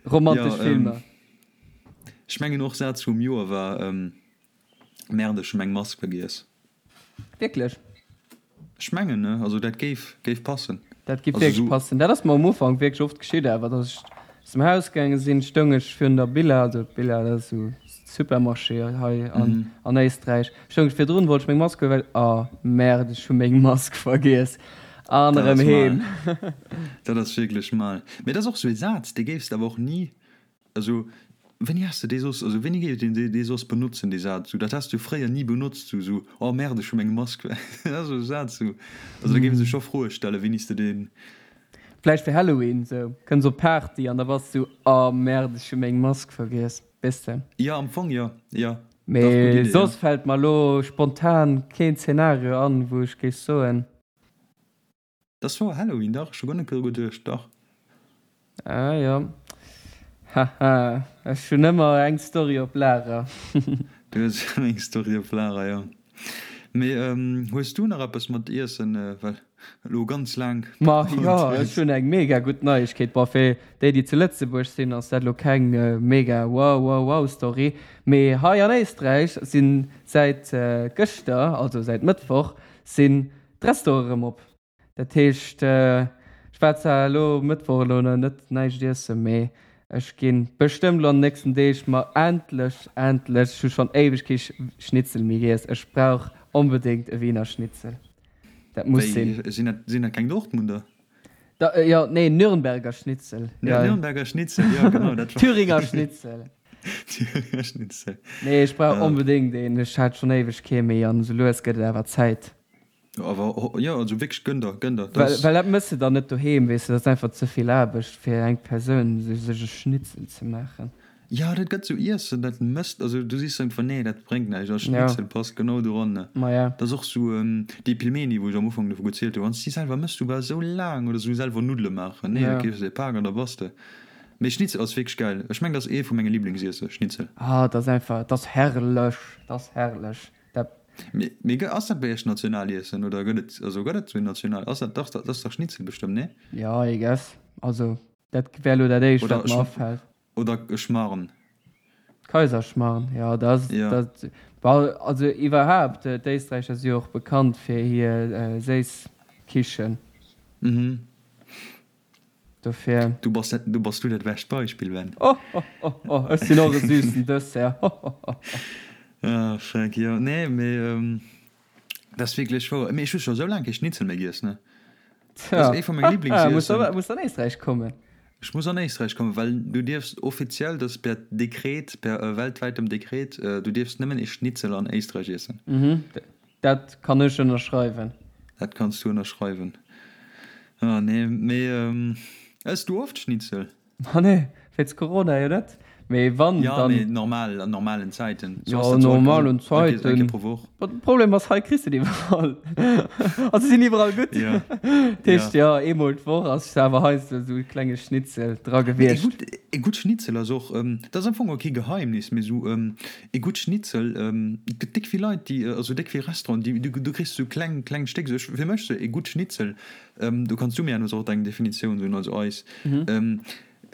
Romantesch Filmer. Ech mengen och Saz vum Joer war Merde ech hu meng Mask vergiess. Wierklech? Ech mengen ne, also dat géif géif passen. Dat géif wierklech passen. Dat ass mer um Ufank wierklech oft geschitt awer, datt ech aus dem Haus gaange sinn, stoung ech virun der Billa, also Billa dat ass esou Supermarché hei an an Éisträich, stoung ech virdrun, wollt ech meng Mask huelen, well oh merde ech hu meng Mask vergiess an erëm heem. Dat ass wierklech mal. Mee dat ass och esou ee Saz, dee géifs de awer och ni Also, wéini has de dee soss, also wéini géif een dee soss benotzen, dee Saz? Sou, dat has de jo fréier ni benotzt, sou, sou, oh merde, ech hu meng Mask, dat ass esou e Saz, sou, also da géif ee sech scho Froe stellen, wéini s de deen. Vläicht fir Halloween, sou, kënns op d'Party an da bass du, oh merde, ech hu meng Mask vergiess, weess de? Jo, am Fong jo, jo, dach, gutt Mee Idee, jo. Soss fält mer elo spontan keen Zeenario an, wou ech géif soen. Dass wor Halloween, dach, ech hu guer net dru geduecht, dach. Ah jo, haha, ech hunn ëmmer eng Story op Lager. Du hues ëmmer eng Story op Lager, jo. Mee hues du nach eppes mat Iessen, well elo ganz laang Ma jo, ech hunn eng mega gutt Neiegkeet. Bon, fir déi, déi zu Lëtzebuerg sinn, ass dat elo keng mega wow wow wow Story, mee hei an Éisträich sinn säit gëschter, also säit Mëttwoch, sinn D'Restaurante erëm op. Dat heescht, ech war zwar elo Mëttwoch elo nach net näischt iessen, mee ech gi bestëmmt elo an den nächsten Deeg mer endlech, endlech, ech hu schonn éiweg kee Schnitzel méi giess, ech brauch onbedéngt e Wiener Schnitzel. Dat muss sinn. Wéi, sinn dat, sinn dat keng Dortmunder? Da, jo, nee, Nürnberger Schnitzel. Ja, Nürnberger Schnitzel, jo, genau, dat war. Thüringer Schnitzel. Thüringer Schnitzel. Nee, ech brauch onbedéngt een. Ech hat schonn éiweg kee méi an esou lues gëtt et awer Zäit. Awer jo, also wierklech, gönn der, gönn der. Well, well dat mëss de dann net doheem, weess de, dat ass einfach ze vill Aarbecht fir eng Persoun, sech e Schnitzel ze maachen. Jo, dat gëtt sou Iessen, dat mësst, also du sichs einfach, nee, dat bréngt näischt, a Schnitzel passt genau doran. Ma ja. Dat ass och sou déi Pilmeni, wou ech am Ufank dovu gezielt hu, wann s de déi selwer mëss, du bass esou laang, oder sou selwer Nuddele maachen, nee, da keefs de e Pak an da bass de. Mee Schnitzel ass wierklech gäil, ech mengen, dat ass ee vu menge Liblingsiessen, Schnitzel. Ah, dat ass einfach, dat ass herrlech, dat ass herrlech, dat. Mee ass dat bei iech Nationaliessen oder gëtt et, also gëtt et sou een National, ass dat, dach, dat ass dach Schnitzel bestëmmt, nee? Jo, I guess, also. Dat wär elo dat éischt, wat mer afält. Oder e Schmarrn. Kaiserschmarrn, jo, dat ass, dat, bon, also iwwerhaapt, d'Éisträicher si jo och bekannt fir hir séiss Kichen. Mhm. Dofir. Du bass, du bass du dat bescht Beispill, Ben. Oh, oh, oh, oh, ech sinn och e süssen Dessert, ho, ho, ho, ho. Ah, fuck, jo, nee, mee dat ass wierklech wouer. Mee ech hu scho sou laang kee Schnitzel méi giess, ne? Dat ass ee vu menge Liblingsessen. Muss an Éisträich kommen. Ech muss an Éisträich kommen, well du dierfs offiziell, dat ass per Dekret, per weltwäitem Dekret, du dierfs nëmmen ee Schnitzel an Éisträich iessen. Mhm, dat kann ech ënnerschreiwen. Dat kanns du ënnerschreiwen. Ah nee, mee ëss du oft Schnitzel? Ma nee, wéinst Corona jo net. Mee wann, Ja, dann. mee normal, an normalen Zäiten. So ass Ja, dat so normalen all, all, Zäiten. Eng Kéier pro Woch. Ma de Problem ass, hei kriss de et iwwerall. Also se sinn iwwerall gutt. Ja. Dat heescht, ja, eemol d'Woch ass awer heiansdo esou e klenge Schnitzel dra Mee e gewiescht. gutt, e gutt Schnitzel ass och, dat ass am Fong och kee Geheimnis, mee esou e gutt Schnitzel, et gëtt déck vill Leit, déi, also déck vill Restauranten, déi, du, du kriss esou kleng, kleng Stéck. Esou ech, fir mech sou e gutt Schnitzel, Do kanns du mir herno och deng Definitioun soen, also eis.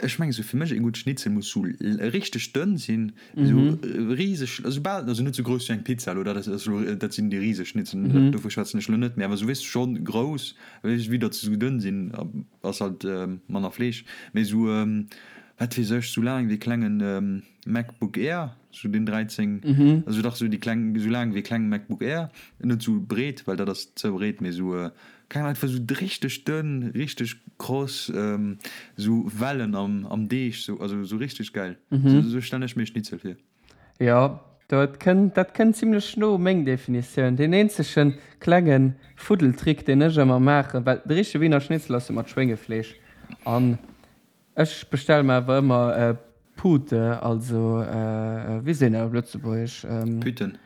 Ech mengen esou fir mech e gutt Schnitzel muss sou richteg dënn sinn, esou riseg, also bal, also net sou grouss wéi eng Pizza elo, dat ass elo, dat sinn déi riseg Schnitzelen, dovu schwätzen ech elo net, mee awer sou weess schonn grouss, wéi datt se sou dënn sinn, ass halt manner Fleesch, mee sou wat weess ech, sou laang wéi e klengen MacBook Air, sou deen 13, also dach sou déi kleng, sou laang wéi e klenge MacBook Air, net sou breet, well dat ass ze breet, mee sou Keng Ahnung, einfach sou richteg dënn, richteg kross, sou Wellen am am Deeg, sou, also sou richteg gäil. Sou stellen ech mir Schnitzel vir. Jo, dat kënnt, dat kënnt zimlech no meng Definitioun. Deen eenzege klenge Fuddeltrick, deen ech ëmmer maachen, well de richtege Wiener Schnitzel ass jo mat Schwéngefleesch an Ech bestelle mer awer ëmmer Pute, also wéi seet een dat op Lëtzebuergesch? Pütten.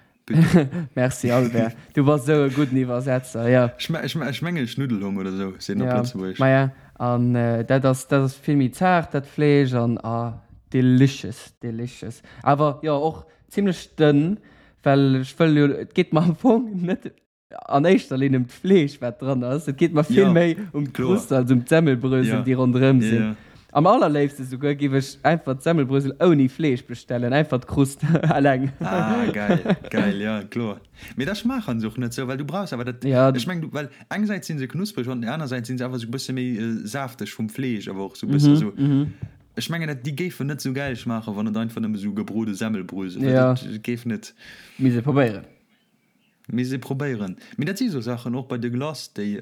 Merci Albert, du bass esou e gudden Iwwersetzer, jo. Ech mengen Schnuddelhong oder esou seet een op Lëtzebuergesch. Maja, an dat ass, dat ass vill méi zaart dat Fleesch an ah delicious, delicious. Awer jo och zimlech dënn, well ech wëll jo, et geet mer am Fong net an éischter Linn ëm d'Fleesch, wat dran ass. Et geet mer vill méi ëm d'Krust als ëm d'Semmelbrösel, déi ronderëm sinn. Am allerléifste souguer giff ech einfach d'Semmelbrösel ouni Fleesch bestellen, einfach d'Krust eleng. Ah, geil, geil, ja, kloer. Mee da schmaachen se och net sou, well du brauchs awer dat, ech mengen, well engsäits si se knuspreg an anersäits si se awer sou bësse méi safteg vum Fleesch, awer och sou bësse sou, ech mengen dat déi géifen net sou gäil schmaachen, wann et einfach nëmme sou gebrode Semmelbrösel wär, dat géif net. Misst ee probéieren. Misst ee probéieren. Mee dat si sou Saachen, och bei de Glace, déi,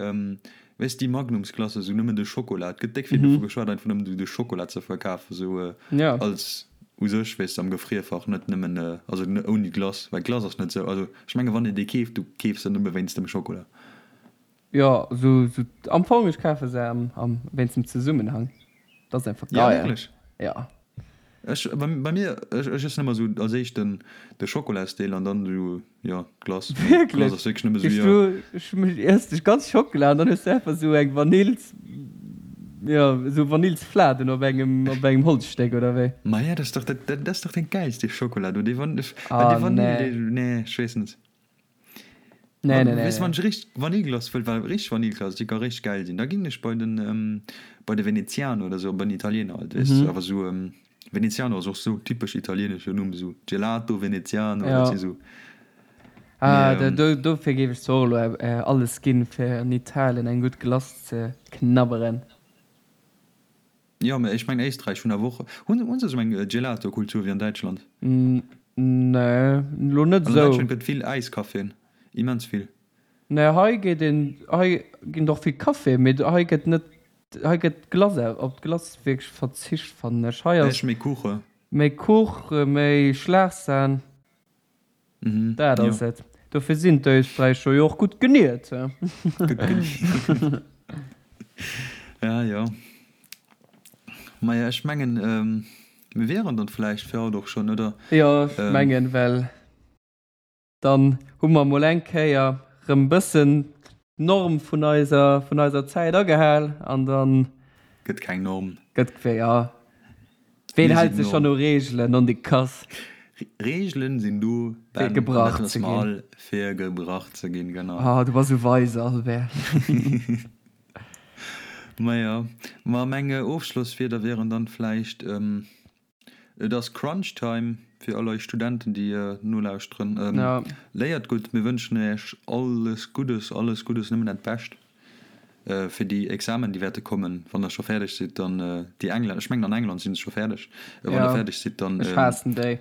weess déi Magnumsglace, sou nëmmen de Schokola, et gëtt déck vill dovu geschwat, einfach nëmmen de Schokola ze verkafen, sou als u sech, weess de, am Gefrierfach, net nëmmen, also ouni Glace, well Glace ass net sou, also ech menge wann een déi keeft, du keefs se nëmme wéinst dem Schokola. Jo, sou, sou am Fong, ech kafe se am, am, wéinst dem Zesummenhang. Dat ass einfach geil. Ja, wierklech? Ja. Ech, bei, bei mir, ech, ech iessen ëmmer sou als éischt den, de Schokolasdeel an dann sou, jo, d'Glace. Wierklech? D'Glace ass wierklech nëmme sou, jo. Du, ech iess dech ganz Schockela an dann hues du einfach sou eng Vanills, jo, sou Vanillsfladen op engem, op engem Holzstéck, oder wéi? Maja, dat ass dach, dat, dat ass dach den gäilste Schokola do, dee Van, well dee Vanill, dee, nee, ech weess net. Nee, nee, nee. Weess wann ech richteg Vanilleglace wëll, well richteg Vanilleglace, déi ka richteg gäil sinn, da ginn ech bei den, bei de Veneziano oder sou, bei den Italiener halt, weess de, awer sou, Veneziano ass och sou typesch italienesche Numm, sou Gelato Veneziano, dat si sou. Ah, dofir géif ech zwar och elo alles ginn, fir an Italien eng gutt Glace ze knabberen. Jo, mä ech mengen Éisträich hunn awer och, hunn hunn se esou eng Gelato-Kultur wéi an Däitschland? Nee, elo net esou. An Däitschland gëtt vill Äiskaffien, immens vill. Nee, hei geet een, hei ginn och vill Café, mee hei gëtt net, hei gëtt Glace, op d'Glace wierklech verzicht fannen ech. Hei ass. Méi Kuche. Méi Kuch, méi Schlagsahn. Dat ass et. Dofir sinn d'Österräicher jo och gutt geniert. Gutt geniert. Ja, jo. Maja, ech mengen, mir wieren dann vläicht fir haut och schonn, oder? Jo, ech mengen, well dann hu mer mol eng Kéier rëm bëssen d'Norm vun eiser, vun eiser Zäit agehal an dann. Gëtt keng Norm. Gëtt, jo. Ween hält sech schonn u Reegelen, non de Kass? Reegelen sinn do, Ben, fir gebrach ze ginn. Fir gebrach ze ginn, genau. Oh, du bass esou weise, Albert. Maja, ma meng Ofschlosswierder wieren dann vläicht, Et ass Crunch Time fir all eis Studenten, déi nolauschteren. Léiert gutt, mir wënschen Iech alles Guddes, alles Guddes, nëmmen dat Bescht fir déi Examen, déi wäerte kommen. Wann der scho fäerdeg sidd, dann déi Engländer, ech mengen an England si se scho fäerdeg, wann der fäerdeg sidd, dann Ech haassen déi.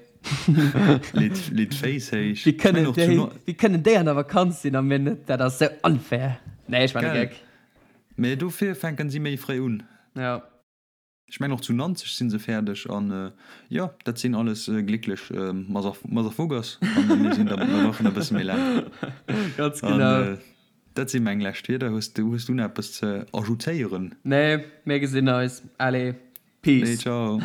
leet d'Féiss héich. Wéi kënnen déi, wéi kënnen déi an der Vakanz sinn a mir net? Dat ass sou unfair. Nee, ech maachen e Geck. Mee dofir fänken si méi fréi un. Jo. Ech mengen och zu Nanzeg sinn se fäerdeg an jo dat sinn alles glécklech Motherfuckers an mir sinn der mir brauchen e bësse méi laang. Ganz genau. An dat si meng lescht Wierder. Hues du hues du nach eppes ze ajoutéieren? Nee, mir gesinn eis. Allez, Peace. Nee, ciao.